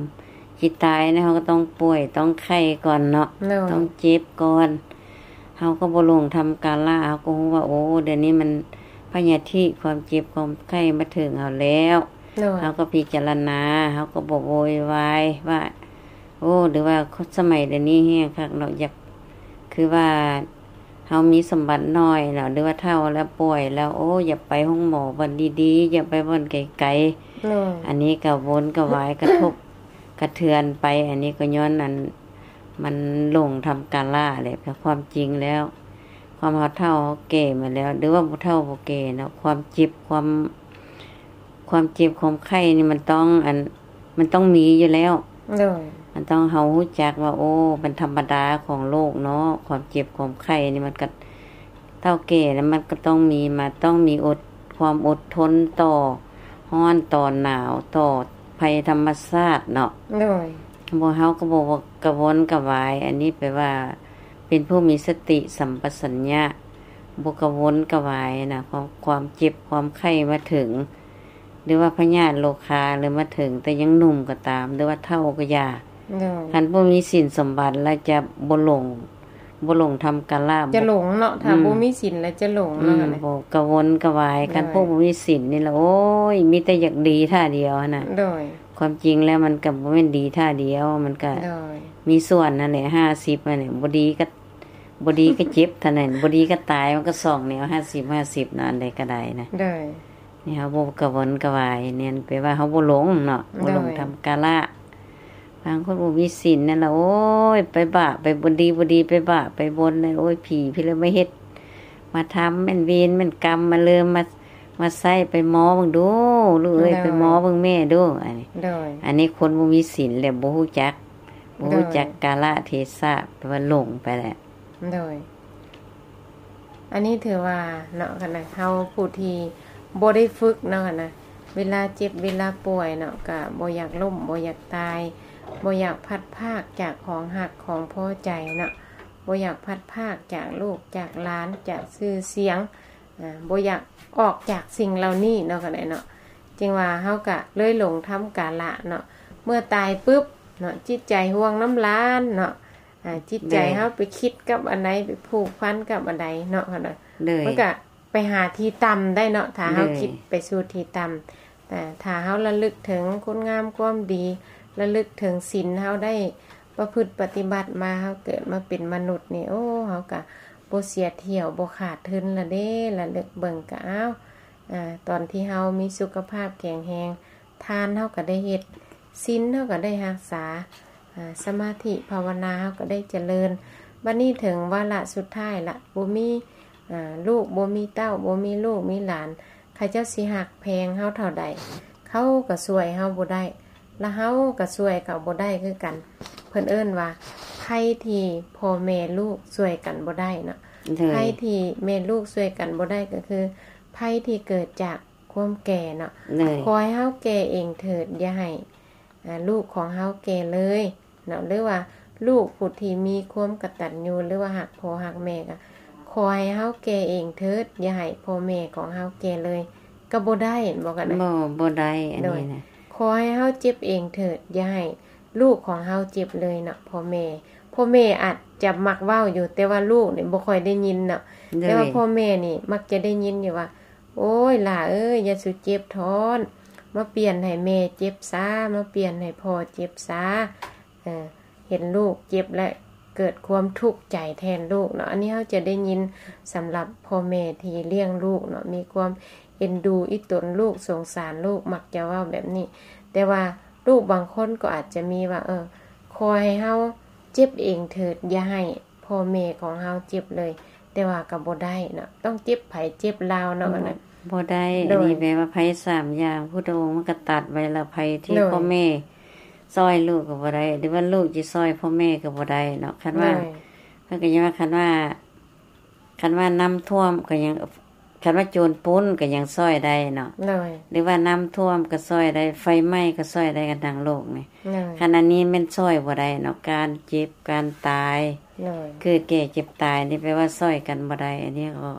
ຊິຕາຍນະ ເຮົາກໍຕ້ອງປ່ວຍ ຕ້ອງໄຂ້ກ່ອນເນາະ ໂດຍ ຕ້ອງເຈັບກ່ອນ. ເຮົາກໍບໍ່ຫຼົງທຳກາລະ ເຮົາກໍຮູ້ວ່າ ໂອ້ ດຽວນີ້ມັນພະຍາທິ ຄວາມເຈັບຄວາມໄຂ້ມາເຖິງເຮົາແລ້ວ ໂດຍ ເຮົາກໍພິຈາລະນາ ເຮົາກໍບໍ່ໂວຍວາຍວ່າ ໂອ້ ຫຼືວ່າສະໄໝດຽວນີ້ແຮງຄັກເນາະ ຢາກ ຄືວ່າ ເຮົາມີສົມບັດໜ້ອຍແລ້ວ ຫຼືວ່າເຖົ້າແລ້ວ ປ່ວຍແລ້ວ ໂອ້ ຢ່າໄປໂຮງໝໍບ່ອນດີໆ ຢ່າໄປບ່ອນໄກໆ ໂດຍ ອັນນີ້ກະວົນກະວາຍ ກະທົບກະເທືອນໄປ ອັນນີ້ກໍຍ້ອນອັນ ມັນຫຼົງທຳກາລະແຫຼະ. ແຕ່ຄວາມຈິງແລ້ວ ຄວາມເຮົາເຖົ້າເຮົາແກ່ມາແລ້ວ ຫຼືວ່າຜູ້ເຖົ້າຜູ້ແກ່ເນາະ ຄວາມເຈັບ ຄວາມ ຄວາມເຈັບຄວາມໄຂ້ນີ້ມັນຕ້ອງ ອັນ ມັນຕ້ອງມີຢູ່ແລ້ວ ໂດຍ ມັນຕ້ອງ ເຮົາຮູ້ຈັກວ່າ ໂອ້ ມັນທຳມະດາຂອງໂລກເນາະ ຄວາມເຈັບຄວາມໄຂ້ນີ້ ມັນກໍ ເຖົ້າແກ່ແລ້ວ ມັນກໍຕ້ອງມີ ມາ ຕ້ອງມີອົດ ຄວາມອົດທົນຕໍ່ຮ້ອນຕໍ່ໜາວ ຕໍ່ໄພທຳມະຊາດເນາະ ໂດຍ ບໍ່ ເຮົາກໍບໍ່ກະວົນກະວາຍ. ອັນນີ້ແປວ່າ ເປັນຜູ້ມີສະຕິສຳປະສັນຍະ ບໍ່ກະວົນກະວາຍນະ ຄວາມ ຄວາມເຈັບຄວາມໄຂ້ມາເຖິງ ຫຼືວ່າພະຍາດໂລຄາ ຫຼືມາເຖິງແຕ່ຍັງໜຸ່ມກໍຕາມ ຫຼືວ່າເຖົ້າກໍຢ່າ ໂດຍ ຄັນຜູ້ມີສິນສົມບັດແລ້ວຈະບໍ່ຫຼົງ ບໍ່ຫຼົງທຳກາລະ ຈະຫຼົງເນາະ ຖ້າ ອືມ ບໍ່ມີສິນແລ້ວຈະຫຼົງເນາະ ອືມ ຫັ້ນນະ ບໍ່ກະວົນກະວາຍ ໂດຍ ຄັນຜູ້ບໍ່ມີສິນນີ້ລະ ໂອ້ຍ ມີແຕ່ຢາກດີທ່າດຽວຫັ້ນນະ ໂດຍ ຄວາມຈິງແລ້ວມັນກໍບໍ່ແມ່ນດີທ່າດຽວ ມັນກໍ ໂດຍ ມີສ່ວນຫັ້ນແຫຼະ ຫ້າສິບຫັ້ນແຫຼະ ບໍ່ດີກໍ ບໍ່ດີກໍເຈັບເທົ່ານັ້ນ ບໍ່ດີກໍຕາຍ ມັນກໍສອງແນວ ຫ້າສິບ ຫ້າສິບເນາະ ອັນໃດກໍໄດ້ນະ ໂດຍ ນີ້ເຮົາບໍ່ກະວົນກະວາຍ ແມ່ນແປວ່າເຮົາບໍ່ຫຼົງເນາະ ບໍ່ຫຼົງ ໂດຍ ທຳກາລະ. ບາງຄົນບໍ່ມີສິນນັ້ນລະ ໂອ້ຍ ໄປບາບ ໄປບໍ່ດີ ບໍ່ດີ ໄປບາບ ໄປບົນນັ້ນ ໂອ້ຍ ຜີພີ່ລະມາເຮັດ ມາທຳ ແມ່ນເວນ ແມ່ນກຳ ມາເລີ່ມ ມາ ມາໃຊ້ ໄປໝໍເບິ່ງດູ ລູກເອີຍ ໂດຍ ໄປໝໍເບິ່ງແມ່ດູ ອັນນີ້ ໂດຍ ອັນນີ້ຄົນບໍ່ມີສິນແຫຼະ ບໍ່ຮູ້ຈັກ ບໍ່ຮູ້ຈັກ ໂດຍ ກາລະເທສະ ແປວ່າຫຼົງໄປແຫຼະ ໂດຍ ອັນນີ້ຖືວ່າເນາະ ຄັນເຮົາຜູ້ທີ່ບໍ່ໄດ້ຝຶກເນາະ ຄັນເວລາເຈັບເວລາປ່ວຍເນາະ ກະບໍ່ຢາກລົ້ມ ບໍ່ຢາກຕາຍ ບໍ່ຢາກພັດພາກຈາກຂອງຮັກຂອງພໍໃຈເນາະ ບໍ່ຢາກພັດພາກຈາກລູກຈາກຫຼານ ຈາກຊື່ສຽງ ອາ ບໍ່ຢາກອອກຈາກສິ່ງເຫຼົ່ານີ້ເນາະ ຄັນເນາະ ຈຶ່ງວ່າເຮົາກະເລີຍຫຼົງທຳກາລະເນາະ ເມື່ອຕາຍປຶບເນາະ ຈິດໃຈຫ່ວງນຳຫຼານເນາະ ອາ ຈິດໃຈ ໂດຍ ເຮົາໄປຄິດກັບອັນໃດ ໄປຜູກພັນກັບອັນໃດເນາະ ເຮົານະ ໂດຍ ມັນກະໄປຫາທີ່ຕ່ຳໄດ້ເນາະ ຖ້າເຮົາ ໂດຍ ຄິດໄປສູ່ທີ່ຕ່ຳ ອາ ຖ້າເຮົາລະລຶກເຖິງຄຸນງາມຄວາມດີ ລະລຶກເຖິງສິນເຮົາໄດ້ປະພຶດປະຕິບັດມາ ເຮົາເກີດມາເປັນມະນຸດນີ້ ໂອ້ ເຮົາກະບໍ່ເສຍທ່ຽວ ບໍ່ຂາດທຶນລະເດ້ ລະລຶກເບິ່ງກະ ອ້າວ ອາ ຕອນທີ່ເຮົາມີສຸຂະພາບແຂງແຮງ ທານເຮົາກໍໄດ້ເຮັດ ສິນເຮົາກໍໄດ້ຮັກສາ ອາ ສະມາທິພາວະນາເຮົາກໍໄດ້ຈະເລີນ ບັດນີ້ເຖິງວາລະສຸດທ້າຍລະ ບໍ່ມີ ອາ ລູກ ບໍ່ມີເຕົ້າ ບໍ່ມີລູກມີຫຼານ ເຂົາເຈົ້າຊິຮັກແພງເຮົາເທົ່າໃດ ເຂົາກໍຊ່ວຍເຮົາບໍ່ໄດ້ ລະເຮົາກໍຊ່ວຍເຂົາບໍ່ໄດ້ຄືກັນ ເພິ່ນເອີ້ນວ່າ ໄພທີ່ພໍ່ແມ່ລູກຊ່ວຍກັນບໍ່ໄດ້ເນາະ ໂດຍ ໄພທີ່ແມ່ລູກຊ່ວຍກັນບໍ່ໄດ້ກໍຄື ໄພທີ່ເກີດຈາກ ຄວາມແກ່ເນາະ ໂດຍ ຂໍໃຫ້ເຮົາແກ່ເອງເຖີດ ຢ່າໃຫ້ ອາ ລູກຂອງເຮົາແກ່ເລີຍເນາະ ຫຼືວ່າລູກຜູ້ທີ່ມີຄວາມກະຕັນຍູ ຫຼືວ່າຮັກພໍ່ຮັກແມ່ ກໍຂໍໃຫ້ເຮົາແກ່ເອງເຖີດ ຢ່າໃຫ້ພໍ່ແມ່ຂອງເຮົາແກ່ເລີຍ ກໍບໍ່ໄດ້ ເຫັນບໍ່ກັນນະ ບໍ່ ບໍ່ໄດ້ ອັນນີ້ນະ ໂດຍ ຂໍໃຫ້ເຮົາເຈັບເອງເຖີດ ຢ່າໃຫ້ ລູກຂອງເຮົາເຈັບເລີຍເນາະ ພໍ່ແມ່ ພໍ່ແມ່ອາດຈະມັກເວົ້າຢູ່ ແຕ່ວ່າລູກນີ້ບໍ່ຄ່ອຍໄດ້ຍິນເນາະ ໂດຍ ແຕ່ວ່າພໍ່ແມ່ນີ້ມັກຈະໄດ້ຍິນຢູ່ວ່າ ໂອ້ຍ ຫຼ້າເອີຍ ຢ່າສູ່ເຈັບທ້ອນ ມາປ່ຽນໃຫ້ແມ່ເຈັບຊາ ມາປ່ຽນໃຫ້ພໍ່ເຈັບຊາ ເອີ ເຫັນລູກເຈັບແລ້ວເກີດຄວາມທຸກໃຈແທນລູກເນາະ ອັນນີ້ເຮົາຈະໄດ້ຍິນສຳລັບພໍ່ແມ່ທີ່ລ້ຽງລູກເນາະ ມີຄວາມເອັນດູອີ່ຕົນລູກ ສົງສານລູກ ມັກຈະເວົ້າແບບນີ້ ແຕ່ວ່າ ລູກບາງຄົນກໍອາດຈະມີວ່າ ເອີ ຂໍໃຫ້ເຮົາເຈັບເອງເຖີດ ຢ່າໃຫ້ພໍ່ແມ່ຂອງເຮົາເຈັບເລີຍ ແຕ່ວ່າກໍບໍ່ໄດ້ເນາະ ຕ້ອງເຈັບໃຜເຈັບລາວເນາະ ອັນນັ້ນ ບໍ່ໄດ້ ໂດຍ ອັນນີ້ແປວ່າໄພສາມຢ່າງ ພຸດທະອົງມັນກໍຕັດໄວ້ແລ້ວ ໄພທີ່ ໂດຍ ພໍ່ແມ່ຊ່ອຍລູກກໍບໍ່ໄດ້ ຫຼືວ່າລູກຊິຊ່ອຍພໍ່ແມ່ກໍບໍ່ໄດ້ເນາະ ຄັນວ່າ ໂດຍ ເພິ່ນກໍຍັງວ່າ ຄັນວ່າ ຄັນວ່ານ້ຳຖ້ວມກໍຍັງ ຄັນວ່າໂຈນປຸ້ນກໍຍັງຊ່ອຍໄດ້ເນາະ ໂດຍ ຫຼືວ່ານ້ຳຖ້ວມກໍຊ່ອຍໄດ້ ໄຟໄໝ້ກໍຊ່ອຍໄດ້ກັນທັງໂລກນີ້ ໂດຍ ຄັນອັນນີ້ແມ່ນຊ່ອຍບໍ່ໄດ້ເນາະ ການເຈັບການຕາຍ ໂດຍ ເກີດແກ່ເຈັບຕາຍນີ້ແປວ່າຊ່ອຍກັນບໍ່ໄດ້ ອັນນີ້ກໍ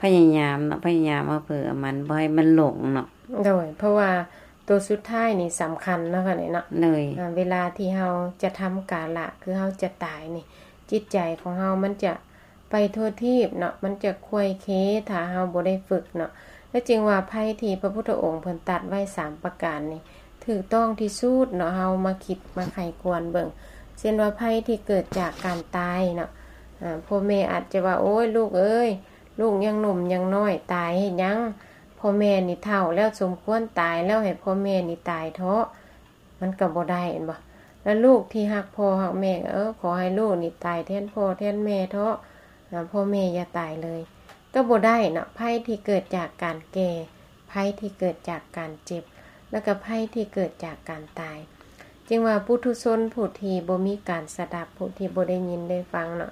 ພະຍາຍາມເນາະ ພະຍາຍາມເອົາເຜີເອົາມັນ ບໍ່ໃຫ້ມັນຫຼົງເນາະ ໂດຍ ເພາະວ່າ ໂຕສຸດທ້າຍນີ້ສຳຄັນເນາະ ຄັນນີ້ເນາະ ໂດຍ ອາ ເວລາທີ່ເຮົາຈະທຳກາລະ ຄືເຮົາຈະຕາຍນີ້ ຈິດໃຈຂອງເຮົາມັນຈະໄປທົ່ວທີບເນາະ ມັນຈະຄວາຍເຄ ຖ້າເຮົາບໍ່ໄດ້ຝຶກເນາະ. ແລະຈຶ່ງວ່າໄພທີ່ພະພຸດທະອົງເພິ່ນຕັດໄວ້ສາມປະການນີ້ ຖືກຕ້ອງທີ່ສຸດເນາະ ເຮົາມາຄິດມາໃຄ່ຄວນເບິ່ງ ເຊັ່ນວ່າໄພທີ່ເກີດຈາກການຕາຍເນາະ ອາ ພໍ່ແມ່ອາດຈະວ່າ ໂອ້ຍ ລູກເອີຍ ລູກຍັງໜຸ່ມຍັງນ້ອຍ ຕາຍເຮັດຫຍັງ? ພໍ່ແມ່ນີ້ເຖົ້າແລ້ວ ສົມຄວນຕາຍແລ້ວ ໃຫ້ພໍ່ແມ່ນີ້ຕາຍເທາະ ມັນກໍບໍ່ໄດ້ແມ່ນບໍ່? ແລ້ວລູກທີ່ຮັກພໍ່ຮັກແມ່ ເອີ ຂໍໃຫ້ລູກນີ້ຕາຍແທນພໍ່ແທນແມ່ເທາະ ອາ ພໍ່ແມ່ຢ່າຕາຍເລີຍ ກໍບໍ່ໄດ້ເນາະ. ໄພທີ່ເກີດຈາກການແກ່ ໄພທີ່ເກີດຈາກການເຈັບ ແລ້ວກໍໄພທີ່ເກີດຈາກການຕາຍ ຈຶ່ງວ່າປຸຖຸຊົນຜູ້ທີ່ບໍ່ມີການສະດັບ ຜູ້ທີ່ບໍ່ໄດ້ຍິນໄດ້ຟັງເນາະ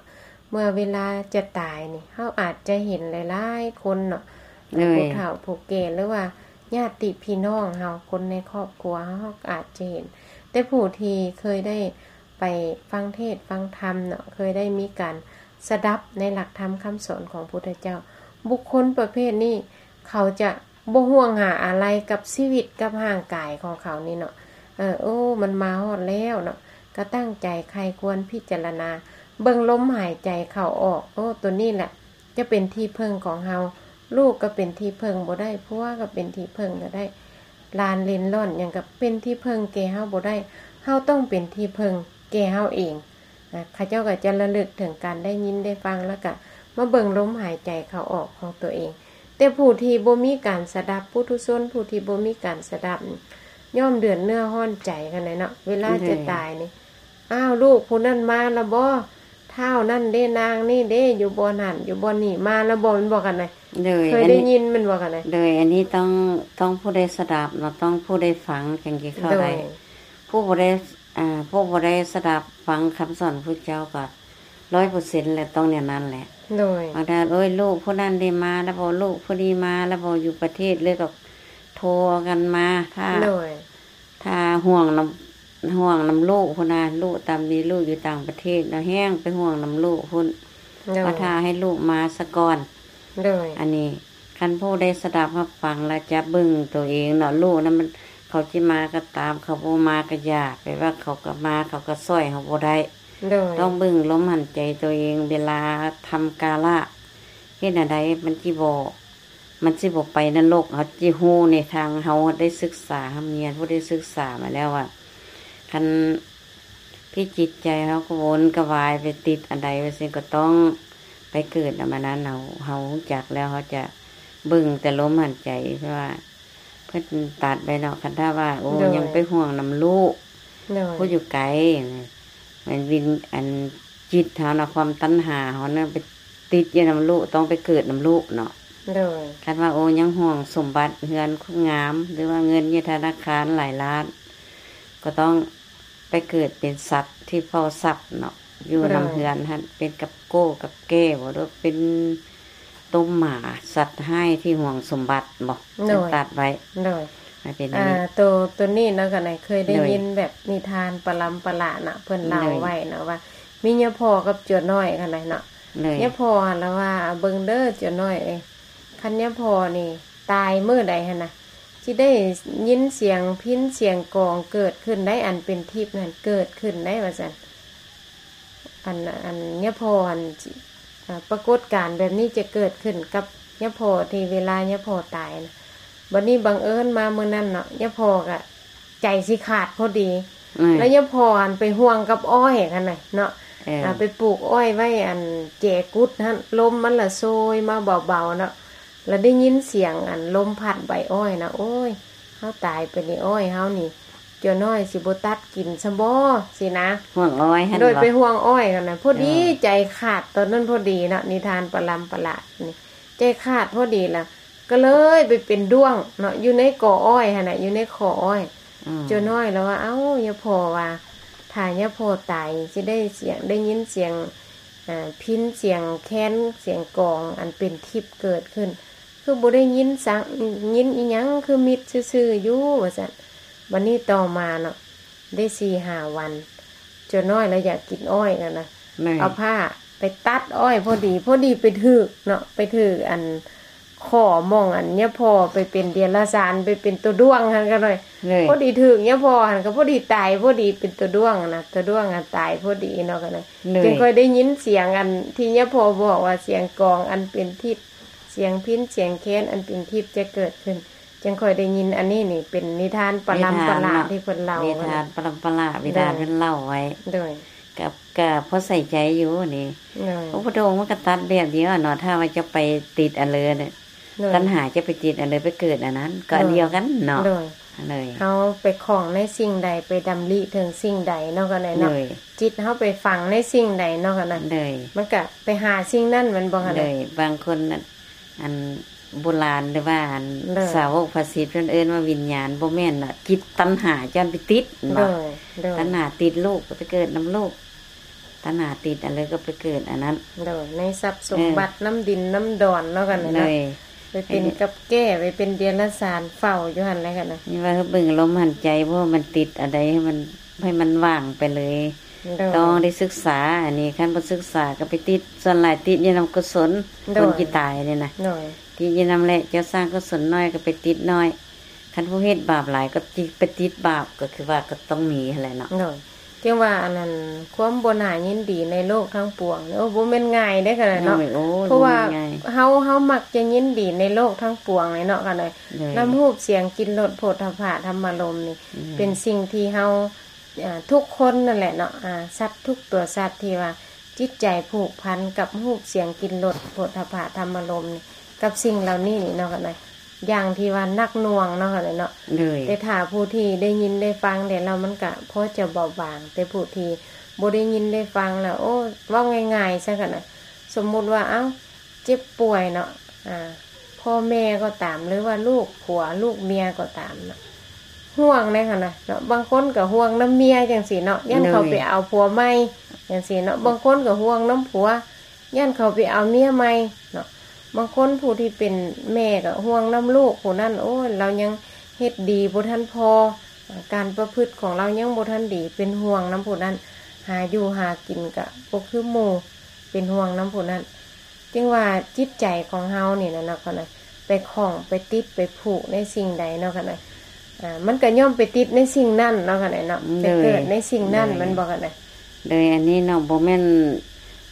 ເມື່ອເວລາຈະຕາຍນີ້ ເຮົາອາດຈະເຫັນຫຼາຍໆຄົນເນາະ ໂດຍ ຜູ້ເຖົ້າຜູ້ແກ່ ຫຼືວ່າຍາດຕິພີ່ນ້ອງເຮົາ ຄົນໃນຄອບຄົວເຮົາ ເຮົາອາດຈະເຫັນ ແຕ່ຜູ້ທີ່ເຄີຍໄດ້ໄປຟັງເທດຟັງທຳເນາະ ເຄີຍໄດ້ມີການສະດັບໃນຫຼັກທຳຄຳສອນຂອງພຸດທະເຈົ້າ ບຸກຄົນປະເພດນີ້ ເຂົາຈະບໍ່ຫ່ວງຫາອາໄລກັບຊີວິດກັບຮ່າງກາຍຂອງເຂົານີ້ເນາະ ເອີ ໂອ້ ມັນມາຮອດແລ້ວເນາະ ກໍຕັ້ງໃຈໃຄ່ຄວນພິຈາລະນາ ເບິ່ງລົມຫາຍໃຈເຂົ້າອອກ ໂອ້ ໂຕນີ້ແຫຼະຈະເປັນທີ່ເພິ່ງຂອງເຮົາ ລູກກໍເປັນທີ່ເພິ່ງບໍ່ໄດ້ ຜົວກໍເປັນທີ່ເພິ່ງບໍ່ໄດ້ ຫຼານເຫຼັນຫຼອນຫຍັງກໍເປັນທີ່ເພິ່ງແກ່ເຮົາບໍ່ໄດ້ ເຮົາຕ້ອງເປັນທີ່ເພິ່ງແກ່ເຮົາເອງ. ນະ ເຂົາເຈົ້າກໍຈະລະລຶກເຖິງການໄດ້ຍິນໄດ້ຟັງ ແລ້ວກະມາເບິ່ງລົມຫາຍໃຈເຂົ້າອອກຂອງຕົວເອງ. ແຕ່ຜູ້ທີ່ບໍ່ມີການສະດັບ ປຸຖຸຊົນຜູ້ທີ່ບໍ່ມີການສະດັບ ຍ່ອມເດືອດເນື້ອຮ້ອນໃຈກັນແຫຼະເນາະ ເວລາຈະຕາຍນີ້ ອ້າວ ລູກຜູ້ນັ້ນມາລະບໍ່? ທ້າວນັ້ນເດ້ ນາງນີ້ເດ້ ຢູ່ບ່ອນຫັ້ນຢູ່ບ່ອນນີ້ ມາລະບໍ່? ແມ່ນບໍ່ກັນນະ? ເຄີຍໄດ້ຍິນແມ່ນບໍ່ກັນນະ? ໂດຍ ອັນນີ້ຕ້ອງ ຕ້ອງຜູ້ໄດ້ສະດັບເນາະ ຕ້ອງຜູ້ໄດ້ຟັງຈັ່ງຊິເຂົ້າໃຈ ໂດຍ ຜູ້ບໍ່ໄດ້ ອາ ຜູ້ບໍ່ໄດ້ສະດັບຟັງຄຳສອນພຸດທະເຈົ້າກໍຮ້ອຍເປີເຊັນແຫຼະ ຕ້ອງແນວນັ້ນແຫຼະ ໂດຍ ບາງທ່ານ ໂອ້ຍ ລູກຜູ້ນັ້ນໄດ້ມາແລ້ວບໍ່? ລູກຜູ້ນີ້ມາແລ້ວບໍ່? ຢູ່ປະເທດເລີຍກໍໂທກັນມາ ຖ້າ ໂດຍ ຖ້າຫ່ວງນຳ ຫ່ວງນຳລູກພຸ້ນນະ ລູກຕາມດີ ລູກຢູ່ຕ່າງປະເທດເນາະ ແຮ່ງໄປຫ່ວງນຳລູກພຸ້ນ ໂດຍ ວ່າຖ້າໃຫ້ລູກມາສາກ່ອນ ໂດຍ ອັນນີ້ ຄັນຜູ້ໄດ້ສະດັບຮັບຟັງແລ້ວຈະເບິ່ງໂຕເອງເນາະ ລູກນັ້ນມັນ ເຂົາຊິມາກໍຕາມ ເຂົາບໍ່ມາກໍຢ່າ ແປວ່າເຂົາກໍມາ ເຂົາກໍຊ່ອຍເຮົາບໍ່ໄດ້ ໂດຍ ຕ້ອງເບິ່ງລົມຫາຍໃຈໂຕເອງ ເວລາທຳກາລະ ເຮັດແນວໃດມັນຊິບໍ່ ມັນຊິບໍ່ໄປນະລົກ ເຮົາຊິຮູ້ໃນທາງ ເຮົາໄດ້ສຶກສາຮ່ຳຮຽນ ຜູ້ໄດ້ສຶກສາມາແລ້ວວ່າ ຄັນ ພິຈິດໃຈເຮົາກະວົນກະວາຍໄປຕິດອັນໃດວ່າຊັ້ນ ກະຕ້ອງໄປເກີດນຳອັນນັ້ນ ເຮົາ ເຮົາຮູ້ຈັກແລ້ວ ເຮົາຈະເບິ່ງແຕ່ລົມຫາຍໃຈ ເພາະວ່າເພິ່ນຕັດໄວ້ເນາະ ຄັນຖ້າວ່າ ໂອ້ ໂດຍ ຍັງໄປຫ່ວງນຳລູກ ໂດຍ ຜູ້ຢູ່ໄກ ແມ່ນວິນ ອັນຈິດເຮົານະ ຄວາມຕັນຫາເຮົານະ ໄປຕິດຢູ່ນຳລູກ ຕ້ອງໄປເກີດນຳລູກເນາະ ໂດຍ ຄັນວ່າ ໂອ້ ຍັງຫ່ວງສົມບັດເຮືອນຄົນງາມ ຫຼືວ່າເງິນຢູ່ທະນາຄານຫຼາຍລ້ານ ກໍຕ້ອງ ໄປເກີດເປັນສັດທີ່ເຝົ້າຊັບເນາະ ຢູ່ນຳເຮືອນຫັ້ນ ເປັນກັບໂກ້ກັບແກ້ບໍ ຫຼືເປັນໂຕໝາ ສັດຮ້າຍທີ່ຫວງສົມບັດບໍ ໂດຍ ເພິ່ນຕັດໄວ້ ໂດຍ ມັນເປັນອັນນີ້ ໂຕ ໂຕນີ້ເນາະ ກະໄດ້ເຄີຍໄດ້ຍິນແບບນິທານປະລຳປະຫຼາເນາະ ເພິ່ນເລົ່າໄວ້ເນາະວ່າ ມີຍາພໍ່ກັບຈົວນ້ອຍຫັ້ນນະເນາະ ຍາພໍ່ຫັ້ນລະວ່າ ເບິ່ງເດີຈົວນ້ອຍເອີຍ ຄັນຍາພໍ່ນີ້ຕາຍມື້ໃດຫັ້ນນະ ຊິໄດ້ຍິນສຽງພິນສຽງກອງເກີດຂຶ້ນໄດ໋ ອັນເປັນທິບຫັ້ນເກີດຂຶ້ນໄດ໋ ວ່າຊັ້ນ ອັນ ອັນຍາພໍ່ຫັ້ນ ອາ ປາກົດການແບບນີ້ຈະເກີດຂຶ້ນກັບຍາພໍ່ທີ່ເວລາຍາພໍ່ຕາຍນະ ບັດນີ້ບັງເອີນມາມື້ນັ້ນເນາະ ຍາພໍ່ກະໃຈຊິຂາດພໍດີ ແລ້ວຍາພໍ່ຫັ້ນໄປຫ່ວງກັບອ້ອຍຫັ້ນນະເນາະ ເອີ ອາ ໄປປູກອ້ອຍໄວ້ອັນແຈກຸດຫັ້ນ ລົມມັນລະໂຊຍມາເບົາໆເນາະ ລະໄດ້ຍິນສຽງອັນລົມພັດໃບອ້ອຍນະ ໂອ້ຍ ເຮົາຕາຍໄປນີ້ ອ້ອຍເຮົານີ້ ຈົວນ້ອຍຊິບໍ່ຕັດກິນຊະບໍ ຊີ້ນະ ຫ່ວງອ້ອຍຫັ້ນ ໂດຍ ໄປຫ່ວງອ້ອຍຫັ້ນນະ ພໍດີ ເອີ ໃຈຂາດຕອນນັ້ນພໍດີເນາະ ນິທານປະລຳປະຫຼານີ້ ໃຈຂາດພໍດີລະ ກໍເລີຍໄປເປັນດ້ວງເນາະ ຢູ່ໃນກໍອ້ອຍຫັ້ນນະ ຢູ່ໃນຂໍ້ອ້ອຍ ອືມ ຈົວນ້ອຍລະວ່າ ເອົ້າ ຍາພໍ່ວ່າ ຖ້າຍາພໍ່ຕາຍຊິໄດ້ສຽງ ໄດ້ຍິນສຽງ ອາ ພິນສຽງແຄນສຽງກອງອັນເປັນທິບເກີດຂຶ້ນ ຄືບໍ່ໄດ້ຍິນສັງ ຍິນອີ່ຫຍັງ ຄືມິດຊື່ໆຢູ່ ວ່າຊັ້ນ ບັດນີ້ຕໍ່ມາເນາະ ໄດ້ສີ່ຫ້າວັນ ຈົວນ້ອຍລະຢາກກິນອ້ອຍແລ້ວນະ ເອົາພ້າໄປຕັດອ້ອຍພໍດີ ພໍດີໄປຖືກເນາະ ໄປຖືກອັນ ຂໍໝ່ອງອັນຍາພໍ່ໄປເປັນເດຍລະສານ ໄປເປັນຕົວດ້ວງຫັ້ນກໍໜ້ອຍ ໂດຍ ພໍດີຖືກຍາພໍ່ຫັ້ນ ກໍພໍດີຕາຍ ພໍດີເປັນຕົວດ້ວງນະ ຕົວດ້ວງຫັ້ນຕາຍພໍດີເນາະ ກໍໜ້ອຍ ໂດຍ ຈຶ່ງຄ່ອຍໄດ້ຍິນສຽງອັນທີ່ຍາພໍ່ບອກວ່າ ສຽງກອງອັນເປັນທິບ ສຽງພິນສຽງແຄນອັນເປັນທິບຈະເກີດຂຶ້ນ ຈຶ່ງຄ່ອຍໄດ້ຍິນ. ອັນນີ້ນີ້ເປັນນິທານປະລຳປະລາທີ່ເພິ່ນເລົ່າ ນິທານປະລຳປະລາ ນິທານເພິ່ນເລົ່າໄວ້ ໂດຍ ກໍ ກໍພໍໃສ່ໃຈຢູ່ນີ້ ໂດຍ ພະພຸດທະອົງມັນກໍຕັດແບບດຽວເນາະ ຖ້າວ່າຈະໄປຕິດອັນເລີນະ ໂດຍ ຕັນຫາຈະໄປຕິດອັນເລີ ໄປເກີດອັນນັ້ນ ກໍອັນດຽວກັນເນາະ ໂດຍ ໂດຍ ເຮົາໄປຂ້ອງໃນສິ່ງໃດ ໄປດຳລິເຖິງສິ່ງໃດເນາະ ກໍໄດ້ເນາະ ໂດຍ ຈິດເຮົາໄປຝັງໃນສິ່ງໃດເນາະ ກໍໄດ້ ໂດຍ ມັນກໍໄປຫາສິ່ງນັ້ນ ແມ່ນບໍ່ ກໍໄດ້ ໂດຍ ບາງຄົນ ອັນ ອັນໂບລານ ຫຼືວ່າອັນ ໂດຍ ສາວົກພະສິດເພິ່ນເອີ້ນວ່າວິນຍານ ບໍ່ແມ່ນເນາະ ຈິດຕັນຫາຈະໄປຕິດເນາະ ໂດຍ ໂດຍ ຕັນຫາຕິດລູກກໍໄປເກີດນຳລູກ ຕັນຫາຕິດອັນເລີຍກໍໄປເກີດອັນນັ້ນ ໂດຍ ໃນຊັບສົມບັດ ເອີ ນຳດິນນຳດອນເນາະ ກັນເນາະ ໂດຍ ໄປເປັນກັບແກ້ ໄປເປັນເດຍລະສານເຝົ້າຢູ່ຫັ້ນແຫຼະ ກັນນະ ນີ້ວ່າເບິ່ງລົມຫັນໃຈ ບໍ່ໃຫ້ມັນຕິດອັນໃດ ໃຫ້ມັນ ໃຫ້ມັນວ່າງໄປເລີຍ ໂດຍ ຕ້ອງໄດ້ສຶກສາ ອັນນີ້ຄັນບໍ່ສຶກສາກໍໄປຕິດ ສ່ວນຫຼາຍຕິດຢູ່ນຳກຸສົນ ໂດຍ ຄົນທີ່ຕາຍນີ້ນະ ໂດຍ ຕິດຢູ່ນຳແຫຼະ ເຈົ້າສ້າງກຸສົນໜ້ອຍກໍໄປຕິດໜ້ອຍ ຄັນຜູ້ເຮັດບາບຫຼາຍກໍຕິດ ໄປຕິດບາບ ກໍຄືວ່າກໍຕ້ອງມີຫັ້ນແຫຼະເນາະ ໂດຍ ຈຶ່ງວ່າອັນນັ້ນ ຄວາມບໍ່ໜ້າຍິນດີໃນໂລກທັງປວງ ໂອ້ ບໍ່ແມ່ນງ່າຍເດ້ ຂະໜາດເນາະ ໂດຍ ໂອ້ ເພາະວ່າ ບໍ່ແມ່ນງ່າຍ ເຮົາ ເຮົາມັກຈະຍິນດີໃນໂລກທັງປວງເລີຍເນາະ ຂະໜາດ ໂດຍ ນຳຮູບສຽງ ກິ່ນ ລົດ ໂຜດຖະພະ ທຳມາລົມນີ້ ໂດຍ ເປັນສິ່ງທີ່ເຮົາ ອ່າ ທຸກຄົນນັ້ນແຫຼະເນາະ ອ່າ ສັດທຸກຕົວສັດທີ່ວ່າຈິດໃຈຜູກພັນກັບຮູບສຽງກິ່ນລົດໂຜດຖະພະທຳມາລົມນີ້ ກັບສິ່ງເຫຼົ່ານີ້ນີ້ເນາະ ກໍໄດ້ ຢ່າງທີ່ວ່າໜັກໜ່ວງເນາະ ກໍໄດ້ເນາະ ໂດຍ ແຕ່ຖ້າຜູ້ທີ່ໄດ້ຍິນໄດ້ຟັງແລ້ວ ມັນກໍພໍຈະເບົາບາງ ແຕ່ຜູ້ທີ່ບໍ່ໄດ້ຍິນໄດ້ຟັງແລ້ວ ໂອ້ ເວົ້າງ່າຍໆຊະ ກໍໄດ້ ສົມມຸດວ່າ ເອົ້າ ເຈັບປ່ວຍເນາະ ອ່າ ພໍ່ແມ່ກໍຕາມ ຫຼືວ່າລູກຜົວລູກເມຍກໍຕາມເນາະ ຫ່ວງເດ້ຫັ້ນນະເນາະ ບາງຄົນກໍຫ່ວງນຳເມຍຈັ່ງຊີ້ເນາະ ຢ້ານເຂົາໄປເອົາຜົວໃໝ່ຈັ່ງຊີ້ເນາະ ບາງຄົນກໍຫ່ວງນຳຜົວ ຢ້ານເຂົາໄປເອົາເມຍໃໝ່ເນາະ ບາງຄົນຜູ້ທີ່ເປັນແມ່ກໍຫ່ວງນຳລູກຜູ້ນັ້ນ ໂອ້ຍ ລາວຍັງເຮັດດີບໍ່ທັນພໍ ການປະພຶດຂອງລາວຍັງບໍ່ທັນດີ ເປັນຫ່ວງນຳຜູ້ນັ້ນ ຫາຢູ່ຫາກິນກໍບໍ່ຄືໝູ່ ເປັນຫ່ວງນຳຜູ້ນັ້ນ ຈຶ່ງວ່າຈິດໃຈຂອງເຮົານີ້ນະເນາະ ຂະນະ ໄປຂ້ອງໄປຕິດໄປຜູກໃນສິ່ງໃດເນາະ ຂະນະ ອ່າ ມັນກໍຍ່ອມໄປຕິດໃນສິ່ງນັ້ນເນາະ ຂະນະເນາະ ໄປເກີດໃນສິ່ງນັ້ນ ແມ່ນບໍ່ ຂະນະ ໂດຍ ອັນນີ້ເນາະ ບໍ່ແມ່ນ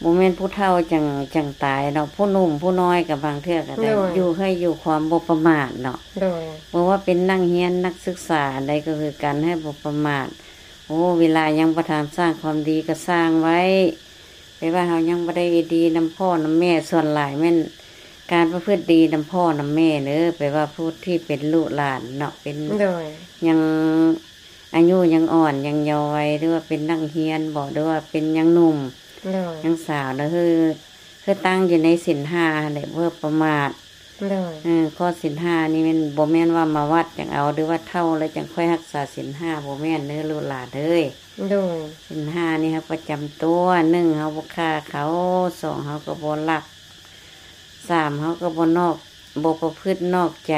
ບໍ່ແມ່ນຜູ້ເຖົ້າຈັ່ງ ຈັ່ງຕາຍເນາະ ຜູ້ໜຸ່ມຜູ້ນ້ອຍກໍບາງເທື່ອກໍໄດ້ ໂດຍ ຢູ່ໃຫ້ຢູ່ຄວາມບໍ່ປະໝາດເນາະ ໂດຍ ບໍ່ວ່າເປັນນັກຮຽນນັກສຶກສາອັນໃດກໍຄືກັນ ໃຫ້ບໍ່ປະໝາດ ໂອ້ ເວລາຍັງບໍ່ທັນສ້າງຄວາມດີກໍສ້າງໄວ້ ແປວ່າເຮົາຍັງບໍ່ໄດ້ດີນຳພໍ່ນຳແມ່ ສ່ວນຫຼາຍແມ່ນການປະພຶດດີນຳພໍ່ນຳແມ່ເດີ ແປວ່າຜູ້ທີ່ເປັນລູກຫຼານເນາະ ເປັນ ໂດຍ ຍັງອາຍຸຍັງອ່ອນ ຍັງເຍົາໄວ ຫຼືວ່າເປັນນັກຮຽນບໍ ຫຼືວ່າເປັນຍັງໜຸ່ມ ໂດຍ ຍັງສາວເນາະ ຄື ຄືຕັ້ງຢູ່ໃນສິນຫ້າຫັ້ນແຫຼະ ບໍ່ປະໝາດ ໂດຍ ເອີ ຂໍ້ສິນຫ້ານີ້ແມ່ນ ບໍ່ແມ່ນວ່າມາວັດຈັ່ງເອົາ ຫຼືວ່າເຖົ້າແລ້ວຈັ່ງຄ່ອຍຮັກສາສິນຫ້າ ບໍ່ແມ່ນເດີລູກຫຼານເອີຍ ໂດຍ ສິນຫ້ານີ້ເຮົາປະຈຳຕົວ ໜຶ່ງ ເຮົາບໍ່ຂ້າເຂົາ ສອງ ເຮົາກໍບໍ່ລັກ ສາມ ເຮົາກໍບໍ່ນອກ ບໍ່ປະພຶດນອກໃຈ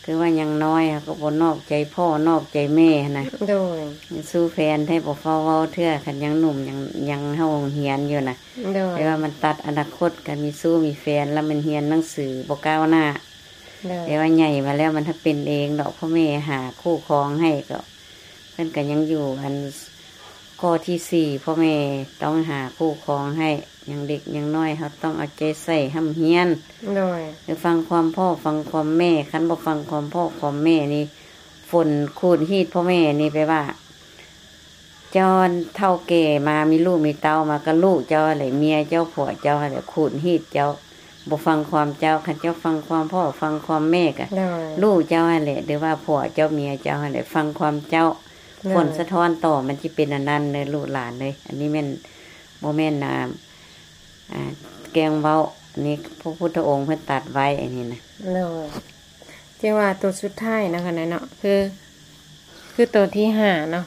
ຄືວ່າຍັງນ້ອຍ ເຮົາກໍບໍ່ນອກໃຈພໍ່ນອກໃຈແມ່ຫັ້ນນະ ໂດຍ ຊູ້ແຟນແທ້ບໍ່ຟ້າວເວົ້າເທື່ອ ຄັນຍັງໜຸ່ມ ຍັງ ຍັງເຂົ້າໂຮງຮຽນຢູ່ນະ ໂດຍ ແຕ່ວ່າມັນຕັດອະນາຄົດ ຄັນມີຊູ້ມີແຟນແລ້ວມັນຮຽນໜັງສືບໍ່ກ້າວໜ້າ ໂດຍ ແຕ່ວ່າໃຫຍ່ມາແລ້ວມັນເປັນເອງດອກ ພໍ່ແມ່ຫາຄູ່ຄອງໃຫ້ ກໍເພິ່ນກໍຍັງຢູ່ອັນ ຂໍ້ທີສີ່ ພໍ່ແມ່ຕ້ອງຫາຄູ່ຄອງໃຫ້ ຍັງເດັກຍັງນ້ອຍ ເຮົາຕ້ອງເອົາໃຈໃສ່ຮ່ຳຮຽນ ໂດຍ ຟັງຄວາມພໍ່ຟັງຄວາມແມ່ ຄັນບໍ່ຟັງຄວາມພໍ່ຄວາມແມ່ນີ້ ຝົນຂູດຮີດພໍ່ແມ່ນີ້ ແປວ່າ ເຈົ້າເຖົ້າແກ່ມາ ມີລູກມີເຕົ້າມາ ກໍລູກເຈົ້າຫັ້ນແຫຼະ ເມຍເຈົ້າຜົວເຈົ້າຫັ້ນແຫຼະ ຂູດຮີດເຈົ້າ ບໍ່ຟັງຄວາມເຈົ້າ ຄັນເຈົ້າຟັງຄວາມພໍ່ຟັງຄວາມແມ່ກໍ ໂດຍ ລູກເຈົ້າຫັ້ນແຫຼະ ຫຼືວ່າຜົວເຈົ້າເມຍເຈົ້າຫັ້ນແຫຼະ ຟັງຄວາມເຈົ້າ ໂດຍ ຜົນສະທ້ອນຕໍ່ມັນຊິເປັນອັນນັ້ນເດີລູກຫຼານເອີຍ ອັນນີ້ແມ່ນ ບໍ່ແມ່ນ ອ່າ ອ່າ ແກງເວົ້າ ອັນນີ້ພະພຸດທະອົງເພິ່ນຕັດໄວ້ ອັນນີ້ນະ ໂດຍ ຈຶ່ງວ່າໂຕສຸດທ້າຍເນາະ ຂະນະເນາະ ຄື ຄືໂຕທີຫ້າເນາະ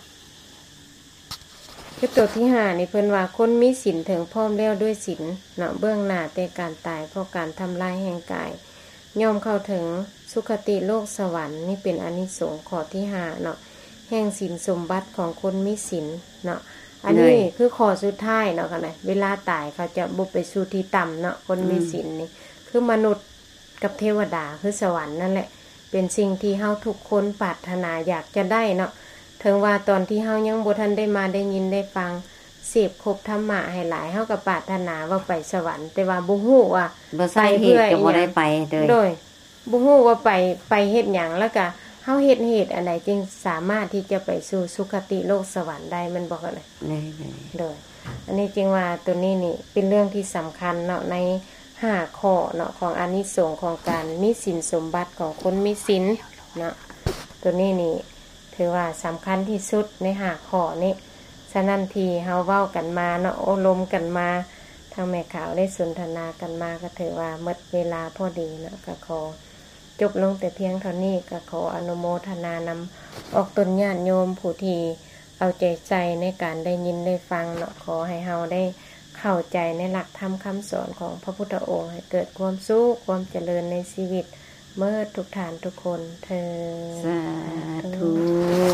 ຄືໂຕທີຫ້ານີ້ເພິ່ນວ່າ ຄົນມີສິນເຖິງພ້ອມແລ້ວດ້ວຍສິນເນາະ ເບື້ອງໜ້າແຕ່ການຕາຍ ເພາະການທຳລາຍແຫ່ງກາຍ ຍ່ອມເຂົ້າເຖິງສຸຄະຕິໂລກສະຫວັນ ນີ້ເປັນອານິສົງຂໍ້ທີຫ້າເນາະ ແຫ່ງສິນສົມບັດຂອງຄົນມີສິນເນາະ ອັນນີ້ ໂດຍ ຄືຂໍ້ສຸດທ້າຍເນາະ ຂະນະ ເວລາຕາຍເຂົາຈະບໍ່ໄປສູ່ທີ່ຕ່ຳເນາະ ຄົນມີ ອືມ ສິນນີ້ ຄືມະນຸດ ກັບເທວະດາ ຄືສະຫວັນນັ້ນແຫຼະ ເປັນສິ່ງທີ່ເຮົາທຸກຄົນປາດຖະໜາຢາກຈະໄດ້ເນາະ. ເຖິງວ່າຕອນທີ່ເຮົາຍັງບໍ່ທັນໄດ້ມາໄດ້ຍິນໄດ້ຟັງ ເສບຄົບທຳມະໃຫ້ຫຼາຍ ເຮົາກໍປາດຖະໜາວ່າໄປສະຫວັນ ແຕ່ວ່າບໍ່ຮູ້ວ່າ ບໍ່ໃສ່ເຫດກໍບໍ່ໄດ້ໄປເລີຍ ໂດຍ ບໍ່ຮູ້ວ່າໄປ ໄປເຮັດຫຍັງ ແລ້ວກະເຮົາເຮັດເຫດອັນໃດຈຶ່ງສາມາດທີ່ຈະໄປສູ່ສຸຄະຕິໂລກສະຫວັນໄດ້ ແມ່ນບໍ່? ໂດຍ ໂດຍ ອັນນີ້ຈຶ່ງວ່າໂຕນີ້ນີ້ເປັນເລື່ອງທີ່ສຳຄັນເນາະ ໃນຫ້າຂໍ້ເນາະ ຂອງອານິສົງຂອງການມີສິນສົມບັດຂອງຄົນມີສິນເນາະ ໂຕນີ້ນີ້ຖືວ່າສຳຄັນທີ່ສຸດໃນຫ້າຂໍ້ນີ້. ສະນັ້ນທີ່ເຮົາເວົ້າກັນມາເນາະ ໂອ້ລົມກັນມາ ທາງແມ່ຂາວໄດ້ສົນທະນາກັນມາ ກໍຖືວ່າໝົດເວລາພໍດີເນາະ ກໍຂໍຈົບລົງແຕ່ພຽງເທົ່ານີ້ ກໍຂໍອະນຸໂມທະນານຳອອກຕົນຍາດໂຍມຜູ້ທີ່ເອົາໃຈໃສ່ໃນການໄດ້ຍິນໄດ້ຟັງເນາະ. ຂໍໃຫ້ເຮົາໄດ້ເຂົ້າໃຈໃນຫຼັກທຳຄຳສອນຂອງພະພຸດທະອົງ ໃຫ້ເກີດຄວາມສຸກຄວາມຈະເລີນໃນຊີວິດເໝິດທຸກທ່ານທຸກຄົນເທີ້ນ ສາທຸ.